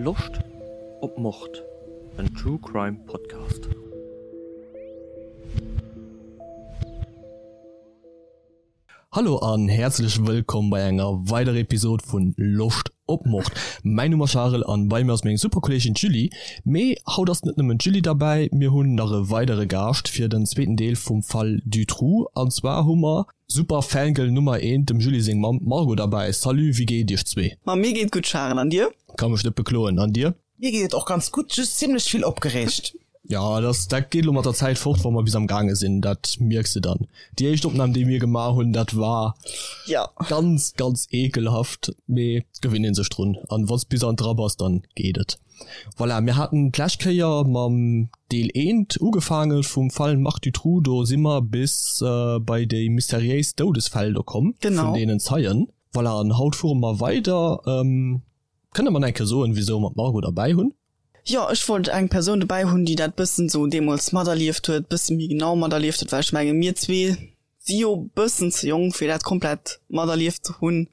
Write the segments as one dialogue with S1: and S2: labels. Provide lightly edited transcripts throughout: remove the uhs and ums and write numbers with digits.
S1: Loscht op Mord? En True Crime Podcast. Hallo an häerzlech wëllkomm bei enger weiderer Episode vun Loscht op Mord. Mäin Numm ass Charel an bei mir ass meng super Kolleegin d'Julie. Mee haut ass net nëmmen d'Julie derbäi, mir hunn nach e weidere Gaascht fir den zweeten Deel vum Fall Dutroux. An zwar hu mer Super Fangirl Nummer eent, dem Julie seng Mamm, d'Margot derbäi. Salut, wéi geet et iech zwee?
S2: Ma mir geet gutt Charel, an dir?
S1: Ka mech net bekloen, an dir?
S3: Mir geet et och ganz gutt, just zimlech vill opgereegt.
S1: Jo, dat dat geet elo mat der Zäit fort, wa mer bis am gaange sinn, dat mierks de dann. Déi éischt Opnam, déi mir gemaach hunn, dat war
S2: Ja.
S1: ganz, ganz ekelhaft, mee et gewinnt ee sech drun an wann s bis an dra bass, dann geet et. Voilà, mir haten d'lescht Kéier mam Deel eent ugefaange vum Fall Marc Dutroux, do si mer bis bei déi mysteriéis Doudesfäll do komm
S2: vun
S1: deenen Zeien. Voilà, an haut fuere mer weider. Kënne mer nach eng Kéier soen, wisou mer d'Margot derbäi hunn?
S2: Jo, ech wollt eng Persoun dobäi hunn, déi dat bëssen sou deemools materlieft huet, bësse méi genau materlieft huet, well ech menge mir zwee si jo bëssen ze jonk, fir dat komplett materlieft ze hunn.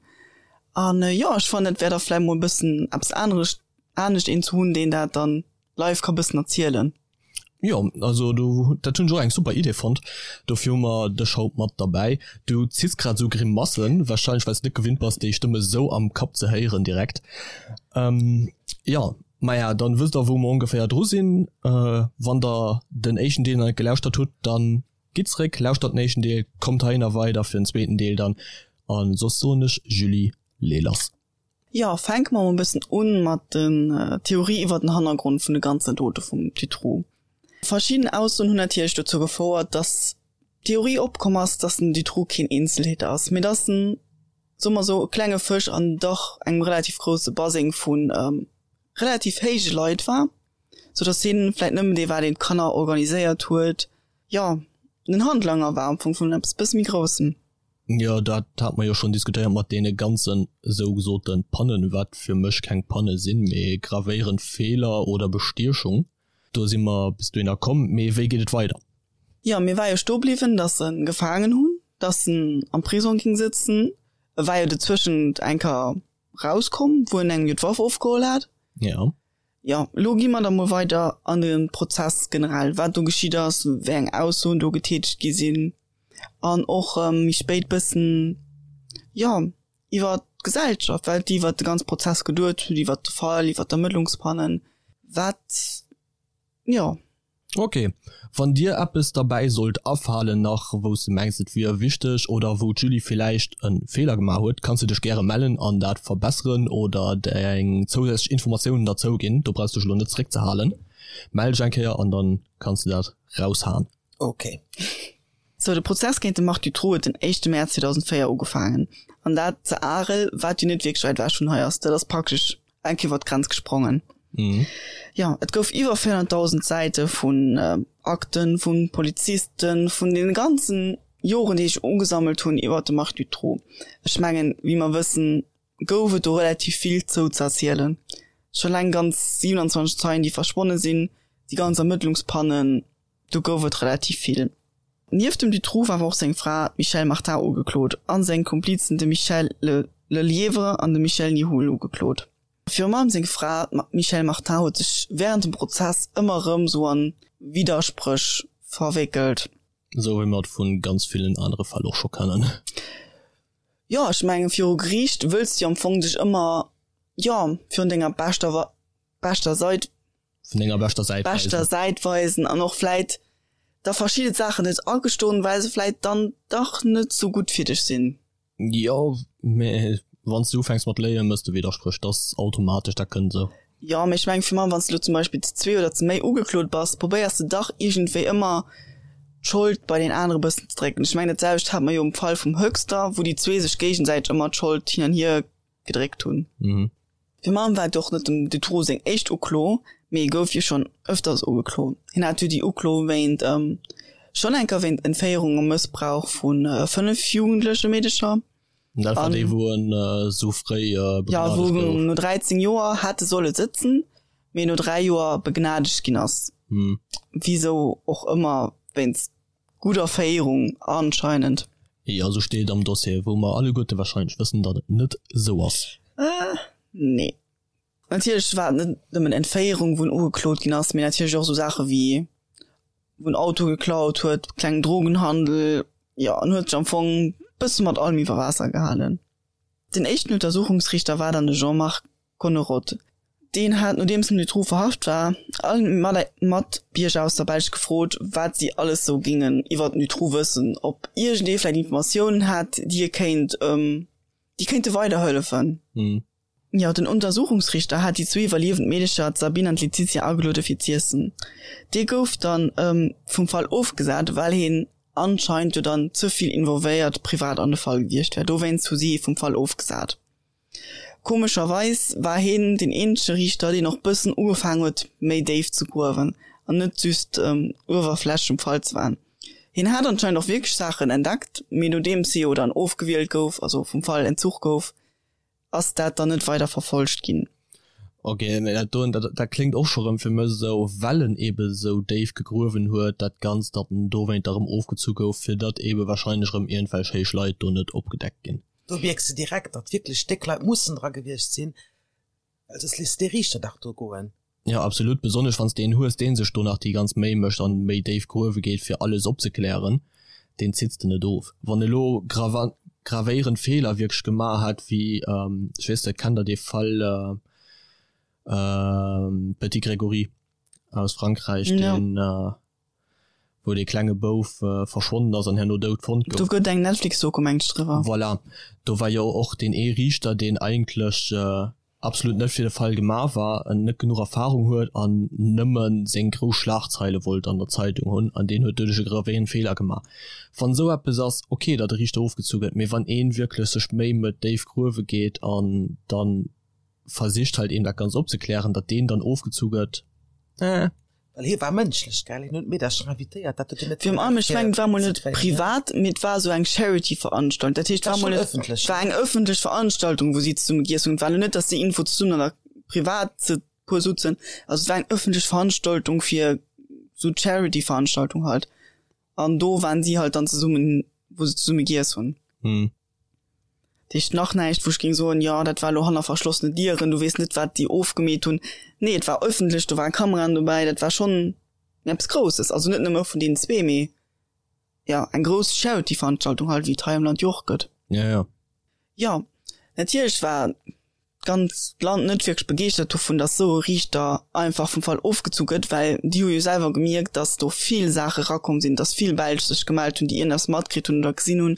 S2: An jo, ech fannen, et wär da vläicht mol e bëssen eppes anerecht, anescht een ze hunn, deen dat dann live ka bëssen erzielen.
S1: Jo, also do, dat hunn ech och eng super Idee fonnt. Dofir hu mer dech haut mat derbäi. Du ziss grad esou Grimassen, wahrscheinlech well s de net gewinnt bass, déi Stëmm esou am Kapp ze héieren direkt. Jo, maja, dann wësst der wou mer ongeféier dru sinn. Wann der den éischten Deel nach net gelauschtert hutt, dann gitt zeréck, lauschtert den éischten Deel, kommt heihinner weider fir den zweeten Deel dann. An soss soen ech, Julie, lee lass.
S2: Jo, fänke mer mol e bëssen un mat den Theorie iwwer den Hannergrond vun de ganzen Dote vum Dutroux. Verschidden Aussoen hunn natierlech dozou gefouert, dass d'Theorie opkomm ass, dass den Dutroux keen Eenzeltäter ass, mee dass en, soe mer sou, e klenge Fësch an dach engem relativ grousse Baseng vu relativ héije Leit war, sou dass hien vläit nëmmen dee war, deen d'Kanner organiséiert huet, jo, den Handlanger war am Fong vun eppes bësse méi Groussem.
S1: Jo, dat hate mer jo schonn diskutéiert mat deene ganzen sougesote Pannen, wat fir mech keng Panne sinn, mee gravéierend Feeler oder Bestiechung. Do si mer bis dohinner komm. Mee wéi geet et weider?
S2: Jo, mir war jo stoe bliwwen, datt se en gefaangen hunn, datt en am Prisong ging sëtzen. E war jo dozwëschent eng Kéier rauskomm, wou en engem jo d'Waff ofgeholl hat.
S1: Jo.
S2: Jo, elo gi mer da mol weider an de Prozess generell, wat do geschitt ass, wéi eng Aussoen do getätegt gi sinn. an och méi spéit bëssen, jo, iwwer d'Gesellschaft, wat déi iwwer de ganze Prozess geduet hunn, iwwer de Fall, iwwer d'Ermëttlungspannen, wat, jo.
S1: Ok, wann dir eppes derbäi sollt afalen nach, wou s de mengs et wier wichteg oder wou d'Julie villäicht e Feeler gemaach huet, kanns de dech gäre mellen an dat verbesseren oder deng zousätzlech Informatiounen derzou ginn. Do brauchs dech elo net zeréckzehalen. Mell dech eng Kéier an dann kanns de dat raushaen.
S3: Ok.
S2: Sou, de Prozess géint de Marc Dutroux huet den éischte Mäerz 2004 ugefaangen. An dat ze Arel, wat jo net wierklech wäit ewech vun hei ass. Dat ass praktesch eng Kéier iwwer d'Grenz gesprongen. Jo, et gouf iwwer 400.000 Säite vun Akten, vu Polizisten, vun deene ganzen Joren, déi sech ugesammelt hunn iwwer de Marc Dutroux. Ech mengen, wéi mer wëssen, gouf et do relativ vill zou ze erzielen. Scho eleng ganz 27 Zeien, déi verschwonne sinn, déi ganz Ermëttlungspannen. Do gouf et relativ vill. Nieft dem Dutroux war awer och seng Fra, d'Michèle Martin, ugeklot a seng Komplizen, de Michel Lelièvre an de Michel Nihoul, ugeklot. Virum allem seng Fra, d'Michèle Martin, huet sech wärend dem Prozess ëmmer erëm sou a Widderspréch verwéckelt.
S1: Esou wéi mer et vu ganz villen anere Fäll och scho kennen.
S2: Jo, ech mengen, viru Geriicht wëlls de jo am Fong dech ëmmer, jo, virun denger beschter, beschter Sait
S1: Vun denger beschter
S2: Säit weisen. Beschter Säit weisen an och vläit da verschidde Saachen net agestoen, well se vläit dann dach net sou gutt fir dech sinn.
S1: Jo, mä wann s de ufänks mat léien, mëss de Widderspréch, dat ass automatesch, dat kënnt esou.
S2: Jo, mä ech mengen fir mech, wann s de lo zum Beispill zu zwee oder zu méi ugeklot bass, probéiers de dach iergendwéi ëmmer d'Schold bei deen anere bëssen ze drécken. Ech mengen dat selwecht hat mer jo um Fall vum Höxter, wou déi zwee sech géigesäiteg ëmmer d'Schold hin an hier gedréckt hunn.
S1: Mhm.
S2: Fir Mam war et och net dem Dutroux seng éischt Uklo, mee e gouf jo schonn ëfters ugeklo. Hien hat jo déi Uklo wéint schonn eng Kéier wéint Entféierung a Mëssbrauch vu 5 jugendleche Meedecher.
S1: Dat war déi, wou en esou fréi
S2: begnadegt gouf. Jo, wou en no 13 Joer hätte solle sëtzen, mee no 3 Joer begnadegt ginn ass. Wisou och ëmmer, wéinst Gudder Féierung anscheinend.
S1: Jo, esou steet et am Dossier, wou mer alleguerte wahrscheinlech wëssen, datt et net esou ass.
S2: Nee. Natierlech war et net nëmmen Entféierung, wou en ugeklot ginn ass, mee natierlech och esou Saache wéi wou en Auto geklaut huet, klengen Drogenhandel, jo, en huet sech am Fong bësse mat allem iwwer Waasser gehalen. Den éischten Untersuchungsriichter war dann de Jean-Marc Connerotte. Deen hat, nodeems den Dutroux verhaft war, all Matbierger aus der Belsch gefrot, wat si alles sou géingen iwwer den Dutroux wëssen, ob iergendee vläicht Informatiounen hätt, déi e kéint, déi kéinte weiderhëllefen. Jo, den Untersuchungsriichter hat déi zwee iwwerliewend Meedecher, d'Sabine an d'Laetitia, ageluede fir z'iessen. Dee gouf dann vum Fall ofgesat, well hien anscheinend jo dann ze vill involvéiert privat an de Fall gewiescht wär. Dowéinst hu si hie vum Fall ofgesat. Komescherweis war hien deen eenzege Riichter, deen och bëssen ugefaangen huet, méi déif ze gruewen an net just uewerflächlech um Fall ze waren. Hien hat anscheinend och wierklech Saachen entdeckt, mee nodeems hie jo dann ofgewielt gouf, also vum Fall entzuch gouf, ass dat dann net weider verfolgt ginn.
S1: Ok, mee dat doen, dat dat kléngt och scho rëm fir mech esou, well en ebe sou déif gegruewen huet dat Ganzt, datt en dowéint da rëm ofgezu gouf, fir datt ebe wahrscheinlech rëm iergendwelch héich Leit do net opgedeckt ginn.
S3: Do mierks de direkt, datt wierklech déck Leit mussen dra gewiescht sinn, well soss léiss de dee Riichter dach do goen.
S1: Jo absolut, besonnesch wanns de een hues deen sech do nach déi ganz Méi mécht an méi déif gruewe geet fir alles opzeklären, deen zitts de net of. Wann elo gravéierend Feeler wierklech gemaach hätt wéi, ech weess net, kennt der dee Fall Petit Grégory aus Frankräich, deen wou dee klenge Bouf verschwonnen ass an herno dout fonnt
S2: gouf. Do gëtt eng Netflix-Doku meng ech driwwer.
S1: Voilà, do war jo och deen ee Riichter, deen eigentlech absolut net fir de Fall gemaach war, en net genuch Erfahrung huet an nëmme seng grouss Schlagzeile wollt an der Zeitung hunn an deen huet doduerch e gravéierend Feeler gemaach. Wann esou eppes ass, ok, datt e Riichter ofgezu gëtt, mee wann ee wierklech sech Méi mëtt, déif gruewe geet an dann versicht halt eben dat Ganzt opzeklären, datt deen dann ofgezu gëtt, eh.
S3: Well hie war mënschlech, gell? Hien huet d'Meedercher invitéiert, dat huet
S2: hien net Virun allem, ech mengen, et war mol net privat, mee et war esou eng Charity-Veranstaltung. Dat heescht, et war mol net, et war eng ëffentlech Veranstaltung, wou si zesumme giess hunn. Et war elo net, datt déi irgendwou zesummen an der privat ze puer sutzen. Also et war eng ëffentlech Veranstaltung fir esou Charity-Veranstaltung halt. An do waren si halt dann zesummen, wou se zesumme giess hunn. Dat heescht nach näischt, wou ech géing soen, jo, dat war elo hanner verschlossene Dieren, du weess net, wat déi ofgemeet hunn. Nee, et war ëffentlech, do ware Kameraen dobäi, dat war schonn eppes Grousses. Also net nëmme vun deenen zwee, mee jo, eng grouss Charity-Veranstaltung halt, wéi et hei am Land jo och gëtt.
S1: Jo, jo.
S2: Jo, natierlech war d'ganzt Land net wierklech begeeschtert dovun, datt esou e Riichter einfach vum Fall ofgezu gëtt, well déi hu jo selwer gemierkt, datt do vill Saache rakomm sinn, datt vill Belsch sech gemellt hunn, déi iergendeppes matkritt hunn oder gesinn hunn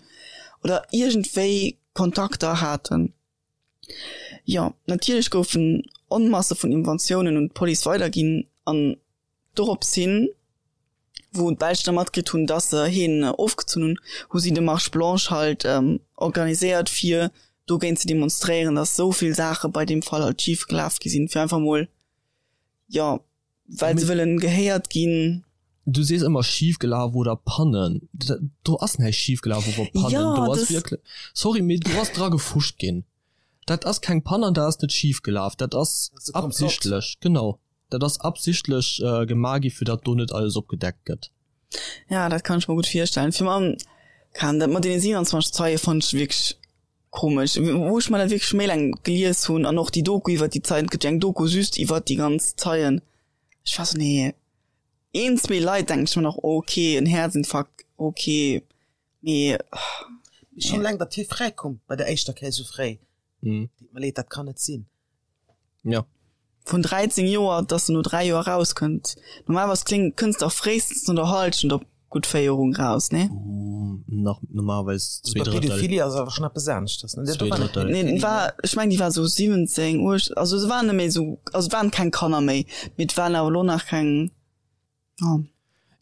S2: oder iergendwéi Kontakter haten. Jo, natierlech goufen Onmasse vun Inventiounen un d'Police weiderginn an Dorops hin, wou d'Belsch da matkritt hunn, dass se heen ofgezunn hunn, hu si de Marche blanche halt organiséiert, fir dogéint ze demonstréieren, dass esou vill Saache bei deem Fall halt schif gelaf gi sinn, fir einfach mol, jo, well se wëllen gehéiert ginn.
S1: Du sees ëmmer schif gelaf oder Pannen. Do ass näischt schif gelaf oder Pannen. Do ass wierklech, sorry, mee do ass dra gefuscht ginn. Dat ass keng Pann an dat ass net schif gelaf. Dat ass absichtlech, genau. Dat ass absichtlech gemaach gi fir datt do net alles opgedeckt gëtt.
S2: Ja, dat kann ech mer gutt virstellen. Fir mam kann dat mat deene 27 Zeie fonnt ech wierklech komesch. Wou ech mer dat wierklech méi laang gelies hunn an och déi Doku iwwer déi Zeien, et gëtt jo eng Doku just iwwer déi ganz Zeien, ech war sou, nee, een, zwee Leit denken ech mer nach, ok, en Häerzinfarkt, ok, mee.
S3: Mee schonn eleng, datt hie fräikoum bei der éischter Kéier esou fréi, deet mer leed, dat kann net sinn.
S1: Ja.
S2: Vun 13 Joer, dass en no 3 Joer rauskënnt. Normalerweis kling, kënns de fréistens no der Halschent op gutt Féierung raus, nee?
S1: Nach normalerweis
S3: zwee Drëttel. Pädophilie ass awer schon eppes aneschters, ne?
S1: Zwee Drëttel.
S2: Nee, war, ech meng déi war sou 17, 18, also se waren net méi sou, also et waren keng Kanner méi, mee et waren awer elo nach keng,
S1: ja.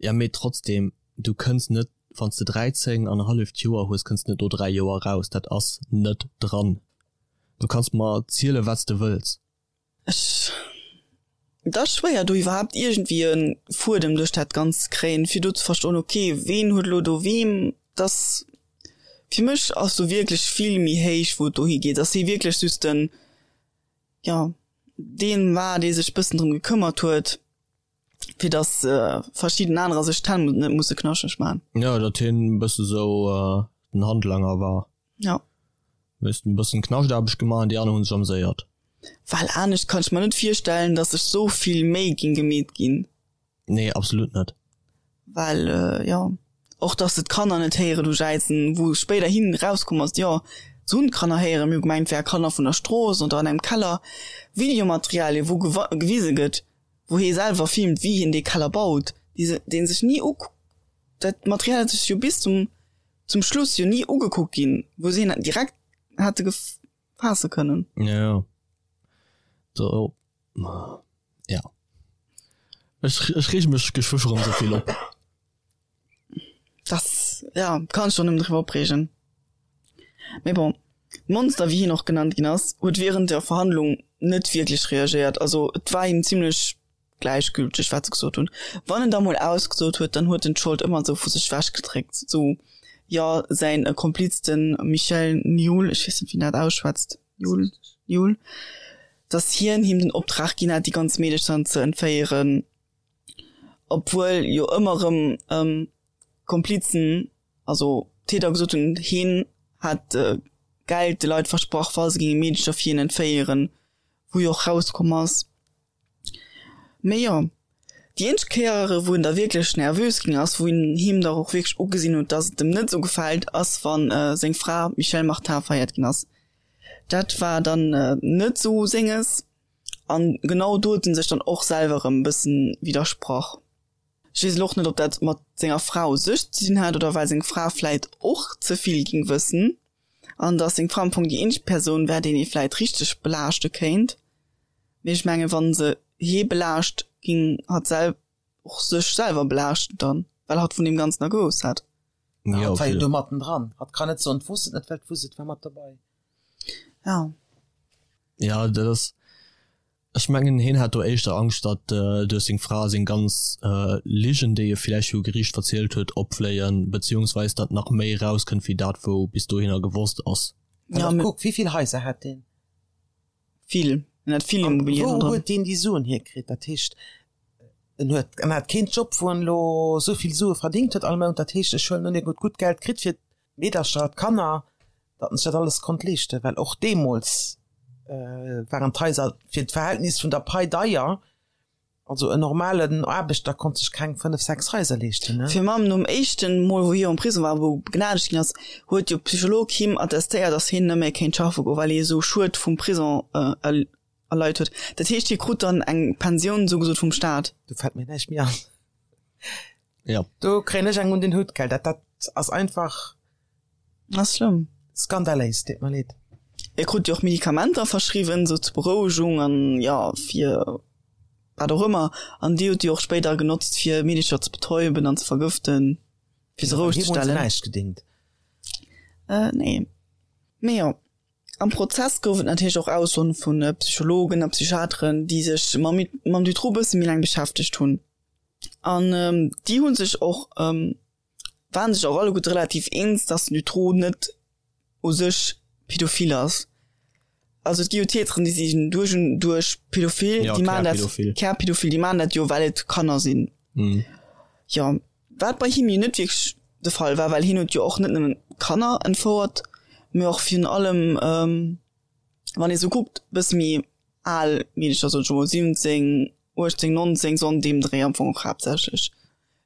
S1: Ja, mee trotzdem, du kënns net, wann s de 13 an e halleft Joer hues, kënns de net no 3 Joer raus. Dat ass net dran. Du kanns mer zielen, wat s de wëlls.
S2: Ech, et ass schwéier do iwwerhaapt iergendwéi e Fuedem duerch dat Ganzt ze kréien, fir do ze verstoen, ok, ween huet elo do weem, dass, fir mech ass do wierklech vill méi héich, wou et dohi geet, dass hie wierklech just den, jo, deen war, dee sech bëssen drëm gekëmmert huet. fir dass verschidden anerer sech d'Hänn net musse knaschteg man.
S1: Jo, datt hien e bësse sou den Handlanger war.
S2: Jo.
S1: Hues en bëssen Knaschtarbescht gemaach an déi aner hunn sech amséiert.
S2: Well anescht kann ech mer net virstellen, dass sech sou vill Méi ging gemeet ginn.
S1: Nee, absolut net.
S2: Well jo, och dass se d'Kanner net héieren hu jäizen, wou spéiderhin erauskomm ass, jo, se hunn d'Kanner héieren, mir hu gemengt, et wäre Kanner vun der Strooss oder an engem Keller. Videomaterialien, wou gewise gëtt, wou hie selwer filmt, wéi hien dee Keller baut, déi se, dee sech ni uk-, dat Material ass sech jo bis zum, zum Schluss jo ni ugekuckt ginn, wou se hien direkt hätte gefaasse kënnen.
S1: Jo, jo. Do, ja. Ech, ech reege mech geschwë scho rëm esou vill op.
S2: Das, ja, kann ech och nëmmen driwwer opreegen. Mee bon, d'Monster, wéi hien och genannt ginn ass, huet während der Verhandlung net wierklech reagéiert. Also et war him zimlech gläichgülteg, wat se gesot hunn. Wann en da mol ausgesot huet, dann huet en d'Schold ëmmer esou vu sech wechgedréckt. Sou, jo, säin Kompliz, de Michel Nihoul, ech weess net, wéi een dat ausschwätzt, Nihoul, Nihoul, dass hien him den Optrag ginn hat, déi ganz Meedecher ze entféieren, obwuel jo ëmmer erëm Komplizen, also Täter gesot hunn, hien hätt Geld de Leit versprach, wa se géinge Meedecher fir hien entféieren, wou jo och rauskomm ass. Mee jo, déi eenzeg Kéier, wou en da wierklech nervös ginn ass, wou een him da och wierklech ugesinn huet, dass et em net esou gefält, ass wann seng Fra d'Michèle Martin verhéiert ginn ass. Dat war dann net esou senges an genau do huet en sech dann och selwer erëm e bëssen widdersprach. Ech weess elo och net, ob dat mat senger Fra u sech ze dinn hat oder well seng Fra vläit och ze vill ging wëssen an dass seng Fra am Fong déi eenzeg Persoun wär, déi ee vläit richteg belaaschte kéint. Mee ech mengen, wann se hee belaascht, ging hatt sel och sech selwer belaaschten dann, well hatt vun deem Ganzen da gewousst hätt.
S3: Ja, hatt war jo do matten dran. Hatt kann net soen, d'wosst et net, well d'wosst et war mat dobei.
S2: Ja.
S1: Ja, dat ass, ech mengen, heen hat do éischter Angscht, datt duerch seng Fra seng ganz Ligen, déi e villäicht viru Geriicht verzielt huet, opfléien, beziehungsweis datt nach méi erauskënnt wéi dat, wou bis dohinner gewosst ass.
S3: Ja, mee kuck, wéi vill Haiser hat deen?
S2: Vill, en hat vill
S3: Immobilien dran. Wou huet deen déi Suen hierkritt? Dat heescht, en huet, en hat keen Job, wou en elo esou vill Sue verdingt huet all Mount. Dat heescht, ech huelen un, hien huet gutt Geld kritt fir d'Meedercher, d'Kanner, datt en sech dat alles konnt leeschten, well och deemools waren d'Haiser fir d'Verhältnis vun der Pai deier. Also en normalen Aarbechter konnt sech keng 5, 6 Haiser leeschten, ne?
S2: Fir mam nom éischten Mol wou hie am Prison war, wou begnadegt ginn ass, huet jo Psycholog him attestéiert, dass hien net méi kéint schaffe goen, well hie esou Schued vum Prison erleit huet. Dat heescht hie krut dann eng Pensioun esou gesot vum Staat.
S3: Do fält mir näischt méi an.
S1: Ja.
S3: Do kréien ech eng un den Hutt, gell. Dat, dat ass einfach.
S2: Ass schlëmm.
S3: Skandaléis, deet mer leed.
S2: E krut jo och Medikamenter verschriwwen, sou zur Berouegung an jo fir wat och ëmmer. An déi huet e jo och spéider genotzt fir Meedercher ze betäuben an ze vergëften, fir se roueg ze
S3: stellen. Him huet se näischt gedingt.
S2: Äh nee. Mee jo, am Prozess gouf et natierlech och Aussoen vu Psychologen a Psychiateren, déi sech mam mam Dutroux bësse méi laang beschäftegt hunn. An déi hu sech och waren sech och alleguerte relativ eens, dass den Dutroux net u sech pädophil ass. Also et gi jo Täteren, déi sinn duerch un duerch pädophil,
S1: ja,
S2: déi maachen dat,
S1: Kärpädophil,
S2: déi maachen dat jo, well et Kanner sinn.
S1: Mhm.
S2: Jo, wat bei him jo net wierklech de Fall war, well hien huet jo och net nëmmen Kanner entfouert, mee och virun allem, ähm, wann ee sou kuckt, bësse méi al Meedercher, soen ech emol 17, 18, 19, sou an deem Dréi am Fong och haaptsächlech.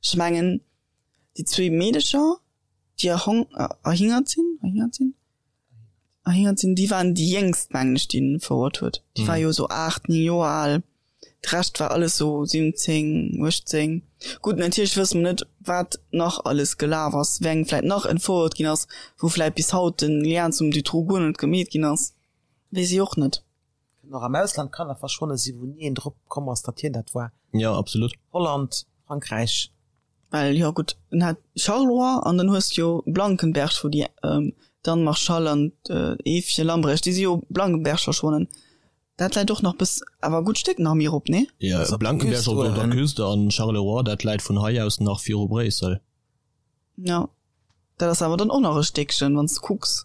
S2: Ech mengen déi zwee Meedecher déi erhong erhingert sinn erhingert sinn erhingert sinn, déi waren déi jéngst mengen ech déi en verhuert huet. Déi war jo esou 8, 9 Joer al. De Rescht war alles sou 17, 18. Gutt natierlech wësse mer net wat nach alles gelaf ass, wéi eng vläit nach entfouert ginn ass, wou vläit bis haut den Lien zum Dutroux guer net gemeet ginn ass, weess ech och net.
S3: Kënnen och am Ausland Kanner verschwonne sinn, wou ni een drop komm ass, datt hien dat war.
S1: Jo, absolut.
S3: Holland, Frankräich.
S2: Well, jo gutt, en hat Charleroi an dann hues de jo Blankenberg, wou déi d'Anne Marchal an d'Eefje Lambrecht, déi si jo Blankenberg verschwonnen. Dat läit och nach bis, awer e gutt Stéck nach méi erop, nee?
S1: Jo, Blankenberg op der Küste an Charleroi, dat läit vun hei aus nach viru Bréissel.
S2: Jo, dat ass awer dann och nach e Stéckchen, wann s de kucks.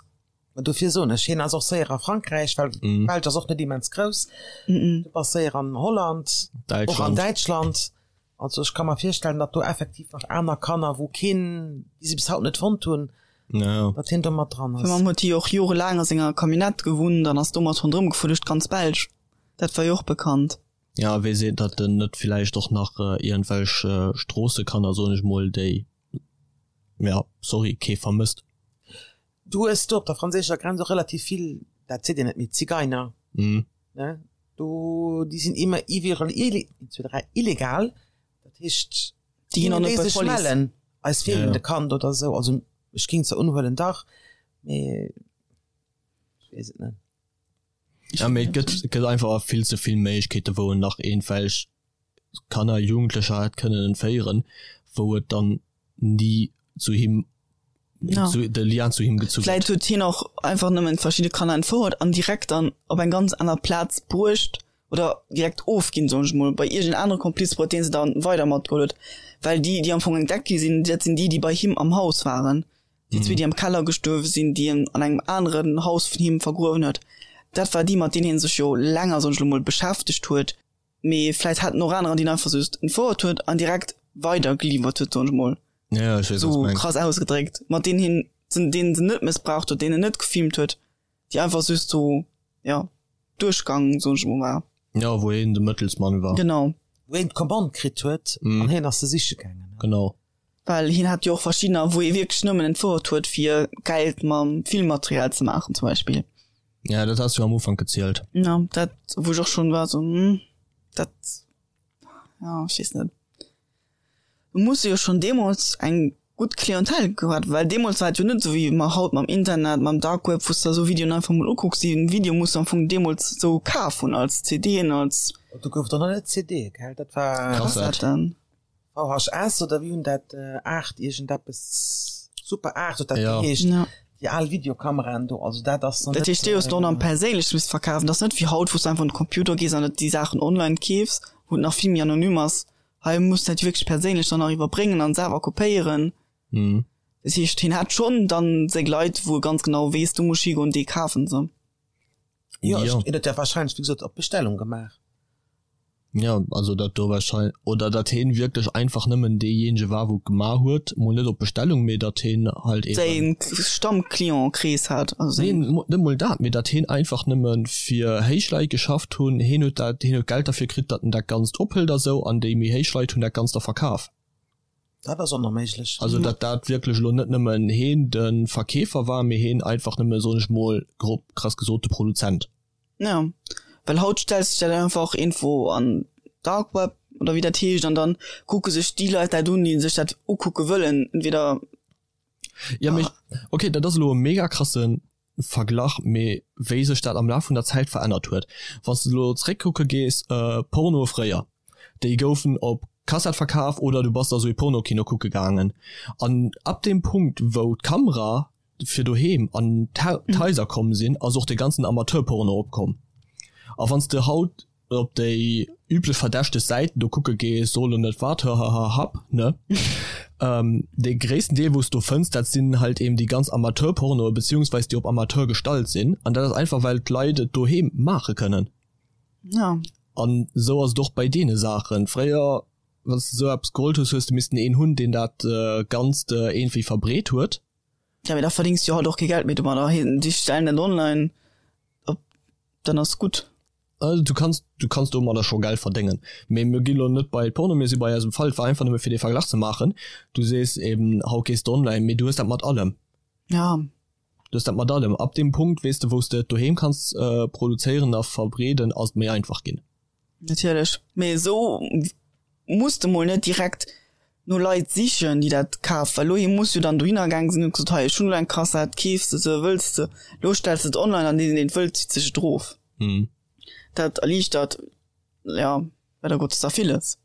S3: Mä dofir soen ech, hien ass och séier a Frankräich, well d'Belsch ass och net immens grouss. Du bass séier an Holland, och an Däitschland. Also ech ka mer virstellen, datt do effektiv nach aner Kanner, wou keen, déi se bis haut net fonnt hunn, datt hien do mat dran
S2: ass. Fir Mamm huet hie jo och jorelaang a senger Camionnette gewunnt an ass domat ronderëm gefuer duerch d'ganz Belsch. Dat war jo och bekannt.
S1: Ja, wee seet, datt en net villäicht och nach iergendwelch Stroossekanner, soen ech mol, déi, ja, sorry, kee vermësst.
S3: Du hues do op der franséischer Grenz och relativ vill, dat seet een net méi, Zigeiner, ne? Do, déi sinn immer iwwerall illegal, dat heescht,
S2: Déi ginn och net bei
S3: sech
S2: d'Police.
S3: mellen, eis feelen de Kand oder esou. Also ech ging zwar unhuelen, dach, mee ech weess et net.
S1: Ja, mee et gëtt, et gëtt einfach vill ze vill Méiglechkeete wou en nach iergendwelch Kanner, Jugendlecher hätt kënnen entféieren, wou et dann ni zu him,
S2: Ja.
S1: zu, de Lien zu him gezu
S2: Vläit
S1: gëtt.
S2: huet hien och einfach nëmmen verschidde Kanner entfouert an direkt dann op eng ganz aner Plaz bruecht oder direkt ofginn, soen ech mol, bei iergend anere Kompliz, bei deen se dann weider matgeholl huet. Well déi, déi am Fong entdeckt gi sinn, dat sinn déi, déi bei him am Haus waren. Déi zwee, déi am Keller gestuerwe sinn, déi en an engem aneren Haus vun him vergruewen huet, dat war déi, mat deenen hie sech jo länger, soen ech elo mol, beschäftegt huet. Mee vläit haten och anerer, déi en einfach just entfouert huet an direkt weider geliwwert huet, soen ech mol,
S1: Ja, ech weess, wat s
S2: sou
S1: mengs.
S2: krass ausgedréckt, mat deenen hien, deenen se net mëssbraucht huet, deenen en net gefilmt huet, déi einfach just sou, jo, duerchgang, soen ech mol, war.
S1: Ja, wou hien de Mëttelsmann war.
S2: Genau.
S3: Wou hien d'Commande kritt huet an hien ass se siche gaangen.
S1: Genau.
S2: Well hien hat jo och verschiddener, wou ee wierklech nëmmen entfouert huet, fir Geld mam Filmmaterial ze maachen zum Beispill.
S1: Ja, dat has du am Ufank gezielt.
S2: Ja, dat, wou ech och schonn war sou, hm, dat, ja, ech weess net. Du muss jo schonn deemools eng gutt Clientèle gehat, well deemools war et jo net esou wéi mer haut mam Internet, mam Dark Web, wou s de esou Videoen einfach mol ukucks. Déi Video muss du am Fong deemools esou kaf hunn als CDen, als.
S3: Do gouf et och nach net CDe, gell? Dat war.
S2: Kassetten.
S3: VHS oder wéi hunn dat 8 iergendeppes Super 8 huet dat
S1: Ja.
S3: geheescht
S2: Ja.
S3: déi al Videokameraen do also dat ass
S2: Dat heescht, déi hues du och nach perséinlech misst verkafen. Dat ass net wéi haut, wou s du einfach un de Computer gees an déi Saachen online keefs, wou et nach vill méi anonym ass. Hei muss du dat wierklech perséinlech dann nach iwwerbréngen an selwer kopéieren.
S1: Mhm.
S2: Dat heescht, hien hat schonn dann seng Leit, wou e ganz genau weess, do muss ech higoen, déi kafen se.
S3: Jo,
S1: Ja.
S3: ech, hien huet dat wahrscheinlech wéi gesot op Bestellung gemaach.
S1: Ja, also dat do wahrscheinlech, oder datt heen wierklech einfach nëmmen deejéinege war wou et gemaach huet, mol net op Bestellung, mee datt heen halt
S2: eben. Säin Stammclientkrees hat, also
S1: Nee,
S2: säin.
S1: net mol dat, mee datt heen einfach nëmme fir héich Leit geschafft hunn, heen huet dat, heen huet Geld derfir kritt, datt en dat Ganzt ophëlt a sou, an déi méi héich Leit hunn dat Ganzt da verkaf.
S3: Dat ass och nach méiglech.
S1: Also datt dat wierklech elo net nëmmen heen de Verkeefer war, mee heen einfach nëmme, soen ech mol grob krass gesot, de Produzent.
S2: Ja, well haut stells de dat einfach irgendwo an Dark Web oder wéi dat heescht an dann kucke sech déi Leit dat un, déi sech dat ukucke wëllen, entweder.
S1: Ja, mee okay, dat ass elo e mega krasse Verglach, mee wéi sech dat am Laf vun der Zäit verännert huet. Wann s de elo zeréckkucke gees, Pornoe fréier, déi goufen op Kassett verkaf oder du bass da sou ee Pornokino kucke gaangen an ab deem Punkt wou d'Kamera fir doheem an d'Haiser komm sinn, ass och de ganzen Amateurporno opkomm. A wann s de haut op déi üblech verdächteg Säiten do kucke gees, so lo net wat, hahahahap, ne? Dee gréissten Deel wou s do fënns, dat sinn halt eben déi ganz Amateurpornoe beziehungsweis déi op Amateur gestallt sinn. An dat ass einfach well d'Leit et doheem maache kënnen.
S2: Ja.
S1: An esou ass et och bei deene Saachen. Fréier, wann s de esou eppes geholt hues, hues de missten een hunn, deen dat Ganzt iergendwéi verbreet huet.
S2: Ja, mee da verdéngs du jo haut och kee Geld méi domadder. Déi stellen dat online op, dann ass gutt.
S1: Du kanns, du kanns domadder scho Geld verdéngen. Mee mir gi lo net bei Porno, mir si bei eisem Fall. Et war einfach nëmme fir dee Verglach ze maachen. Du sees eben, haut gees de online, mee du hues dat mat allem.
S2: Ja.
S1: Du hues dat mat allem. Ab deem Punkt, weess de, wou s de et doheem kanns produzéieren a verbreeden, ass et méi einfach ginn.
S2: Natierlech, mee esou muss de mol net direkt no Leit sichen, déi dat kafen, well elo hie muss jo dann dohinner gaang sinn, huet gesot, hei ech hunn elo eng Kassett, keefs de se, wëlls de, elo stells de et online an deen deen et wëllt zitt sech et erof. Dat erliichtert, jo, leider Gottes da villes.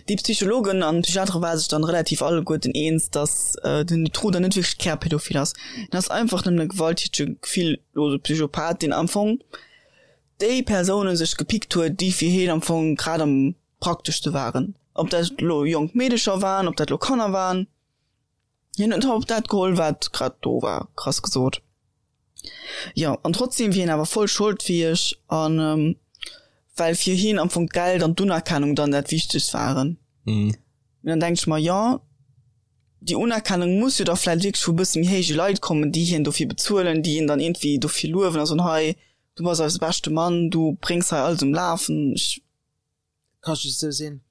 S2: Déi Psychologen an Psychiatere ware sech dann relativ alleguerten eens, dass den Dutroux dann net wierklech Kärpädophil ass. Hien ass einfach nëmmen e gewalttätege, gefilllose Psychopath, deen am Fong déi Persounen sech gepickt huet, déi fir hien am Fong grad am prakteschste waren. Ob dat elo jonk Meedecher waren, ob dat elo Kanner waren, hien huet op dat geholl, wat grad do war, krass gesot. Jo, an trotzdem wier hien awer voll scholdfäeg an well fir hien am Fong d'Geld an d'Unerkennung dann dat Wichtegst waren.
S1: Mhm.
S2: Mee dann denk ech mer, jo, déi Unerkennung muss jo da vläicht wierklech vu bësse méi héije Leit kommen, déi hien dofir bezuelen, déi hien dann iergendwéi dofir luewen a soen, hei. Du bass eise beschte Mann, du bréngs hei alles um Lafen. Ech.
S3: Ka just esou sinn.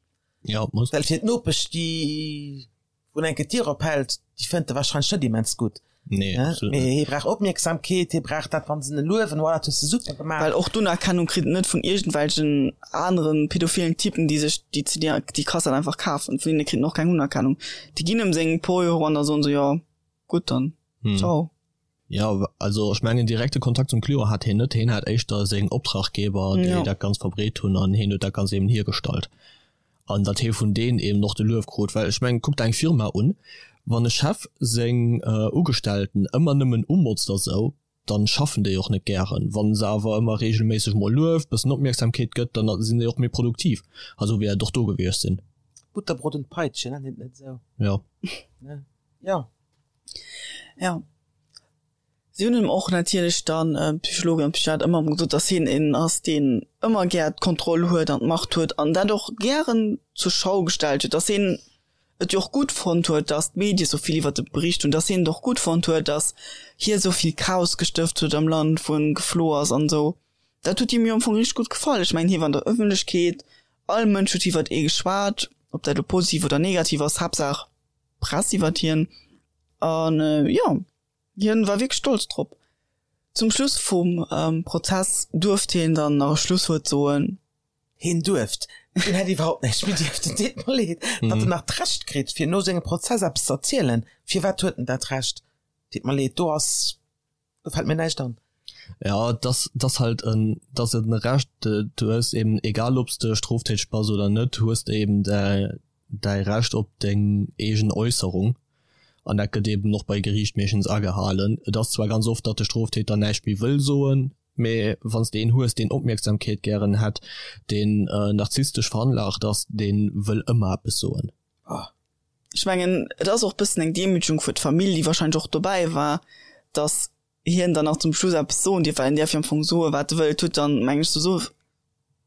S1: Ja, et muss.
S3: Well fir d'Nopesch, déi wou enke d'Dier ophält, déi fënnt e warscheinlech net immens gutt.
S1: Nee, absolut
S3: net.
S1: Mee
S3: hie brauch Opmierksamkeet, hie brauch dat, wann se en luewen, Wow, dat hues de super gemaach.
S2: Well och d'Unerkennung kritt en net vun iergendwelchen anere pädophilen Typen, déi sech déi CD, déi Kassett einfach kafen. Vun deene kritt en och keng Unerkennung. Déi ginn ëm seng puer Euro an da soen se, jo, gutt dann, ciao.
S1: Jo, also ech mengen direkte Kontakt zum Client hat hien net, hien hat éischter seng Optraggeber, déi dat Ganzt verbreet hunn an hien huet dat Ganzt eben hiergestallt an datt hie vun deenen eben och de Luef krut. Well ech mengen, kuck der eng Firma un, wann e Chef seng Ugestellten ëmmer nëmmen umotzt a sou, dann schaffen déi och net gären. Wann se awer ëmmer regelméisseg mol lueft, bëssen Opmierksamkeet gëtt, dann sinn déi och méi produktiv. A sou wäert et och do gewiescht sinn.
S3: Butterbrot und Peitsche, nennt een et net esou?
S1: Jo.
S3: Jo.
S2: Ja. Si hunn him och natierlech dann, d'Psychologen an d'Psychiater, ëmmer erëm gesot, datt hien een ass, deen ëmmer gär d'Kontroll huet an d'Macht huet an dat och gären zur Schau gestallt huet, datt hien et jo och gutt fonnt huet, datt d'Medie sou vill iwwert e bericht hunn, datt hien et och gutt fonnt huet, datt hie sou vill Chaos gestëft huet am Land, wou en geflo ass an esou. Dat huet him jo am Fong richteg gutt gefall. Ech mengen, hie war an der Ëffentlechkeet, all Mënsch huet iwwert ee geschwat, ob dat elo positiv oder negativ ass, Haaptsaach Press iwwert hien an jo hien war wierklech stolz drop. Zum Schluss vum Prozess duerft hien dann nach e Schlusswuert soen.
S3: Hien duerft, hien hätt iwwerhaupt näischt méi dierften, deet mer leed, datt en nach d'Recht kritt fir no sengem Prozess eppes ze erzielen. Firwat huet en dat Recht? Deet mer leed, do ass Do fällt mir näischt an.
S1: Ja, dass dass halt en dass et en Recht du hues eben egal obs de stroftäteg bass oder net hues de eben däi däi Recht op deng eegen Äusserung an dat gëtt eben och bei Geriicht meeschtens agehalen. Et ass zwar ganz oft datt de Stroftäter näischt méi wëll soen, mee wann s de een hues deen Opmierksamkeet gären hätt, deen narzisstesch veranlagt ass, dee wëll ëmmer eppes soen.
S2: Oh. Ech mengen, et ass och bëssen eng Demütegung fir d'Famill, déi wahrscheinlech och dobäi war, datt hien dann nach zum Schluss eppes soen dierf, well en däerf jo am Fong soen, wat e wëllt. Huet dann, meng ech, souwisou,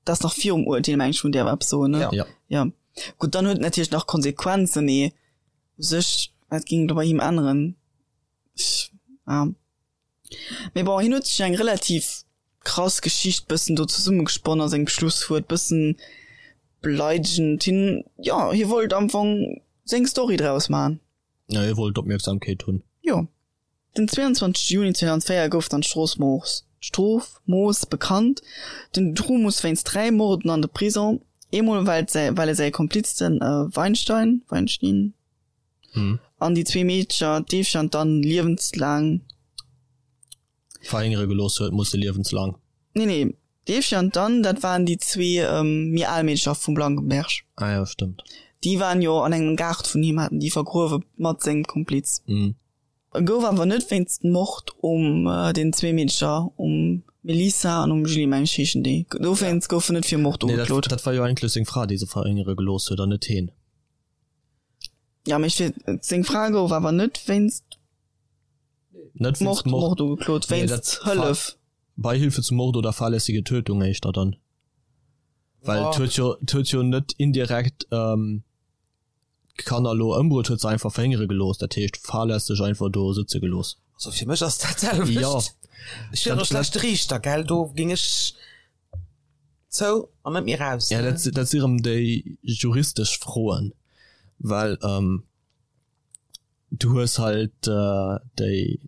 S2: dat ass nach virum Urteel, meng ech, wou en däerf eppes soen, ne?
S1: Ja.
S2: Ja. Gutt, dann huet et natierlech nach Konsequenzen, mee u sech, wat géing do bei him änneren? Ech, ja. Mee bon, hien huet sech eng relativ krass Geschicht bëssen do zesummegesponnen a sengem Schlusswuert, bëssen beleidegend. Hien, jo, hie wollt am Fong seng Story draus maachen.
S1: Jo, hie wollt Opmierksamkeet hunn.
S2: Jo. Den 22 Juni 2004 gouf dann d'Strofmooss, d'Strofmooss bekannt. Den Dutroux muss wéinst 3 Morden an de Prison, eemol well well e säi Kompliz den Weinstein, Weinstein? An déi zwee Meedercher, d'Eefchen an d'Anne, liewenslaang.
S1: Verhéngere gelooss huet, musse liewenslang.
S2: Nee, nee, d'Eefchen an d'Anne, dat waren déi zwee méi al Meedercher vum Blankenberg.
S1: Ah jo, stëmmt.
S2: Déi waren jo an engem Gaart vun him, haten déi vergruewe mat sengem Kompliz. E gouf awer net wéinst Mord um den zwee Meedercher, um Melissa an um Julie, meng ech heeschen déi, dowéinst gouf en net fir Mord
S1: Nee, dat, ugeklot. dat war jo eigentlech seng Fra, déi se verhéngere gelooss huet, an net heen.
S2: Ja, mee fir seng Fra gouf awer net wéinst
S1: Net wéinst
S2: Mord,
S1: Mord.
S2: Mord ugeklot,
S1: Nee,
S2: wéinst
S1: dat
S2: Hëllef.
S1: Beihilfe zum Mord oder fahrlässige Tötung éischter dann. Well et huet jo, et huet jo net indirekt ähm, d'Kanner elo ëmbruet, huet se einfach verhéngere gelooss, dat heescht fahrlässeg einfach do sëtze gelooss.
S3: Also fir mech ass dat d'selwecht.
S1: Jo.
S3: Ech wier och e schlechte Riichter, gell, do géing ech Zou an net méi raus.
S1: Ja, dat, dat si rëm déi juristesch Froen, well ähm, du hues halt äh, déi,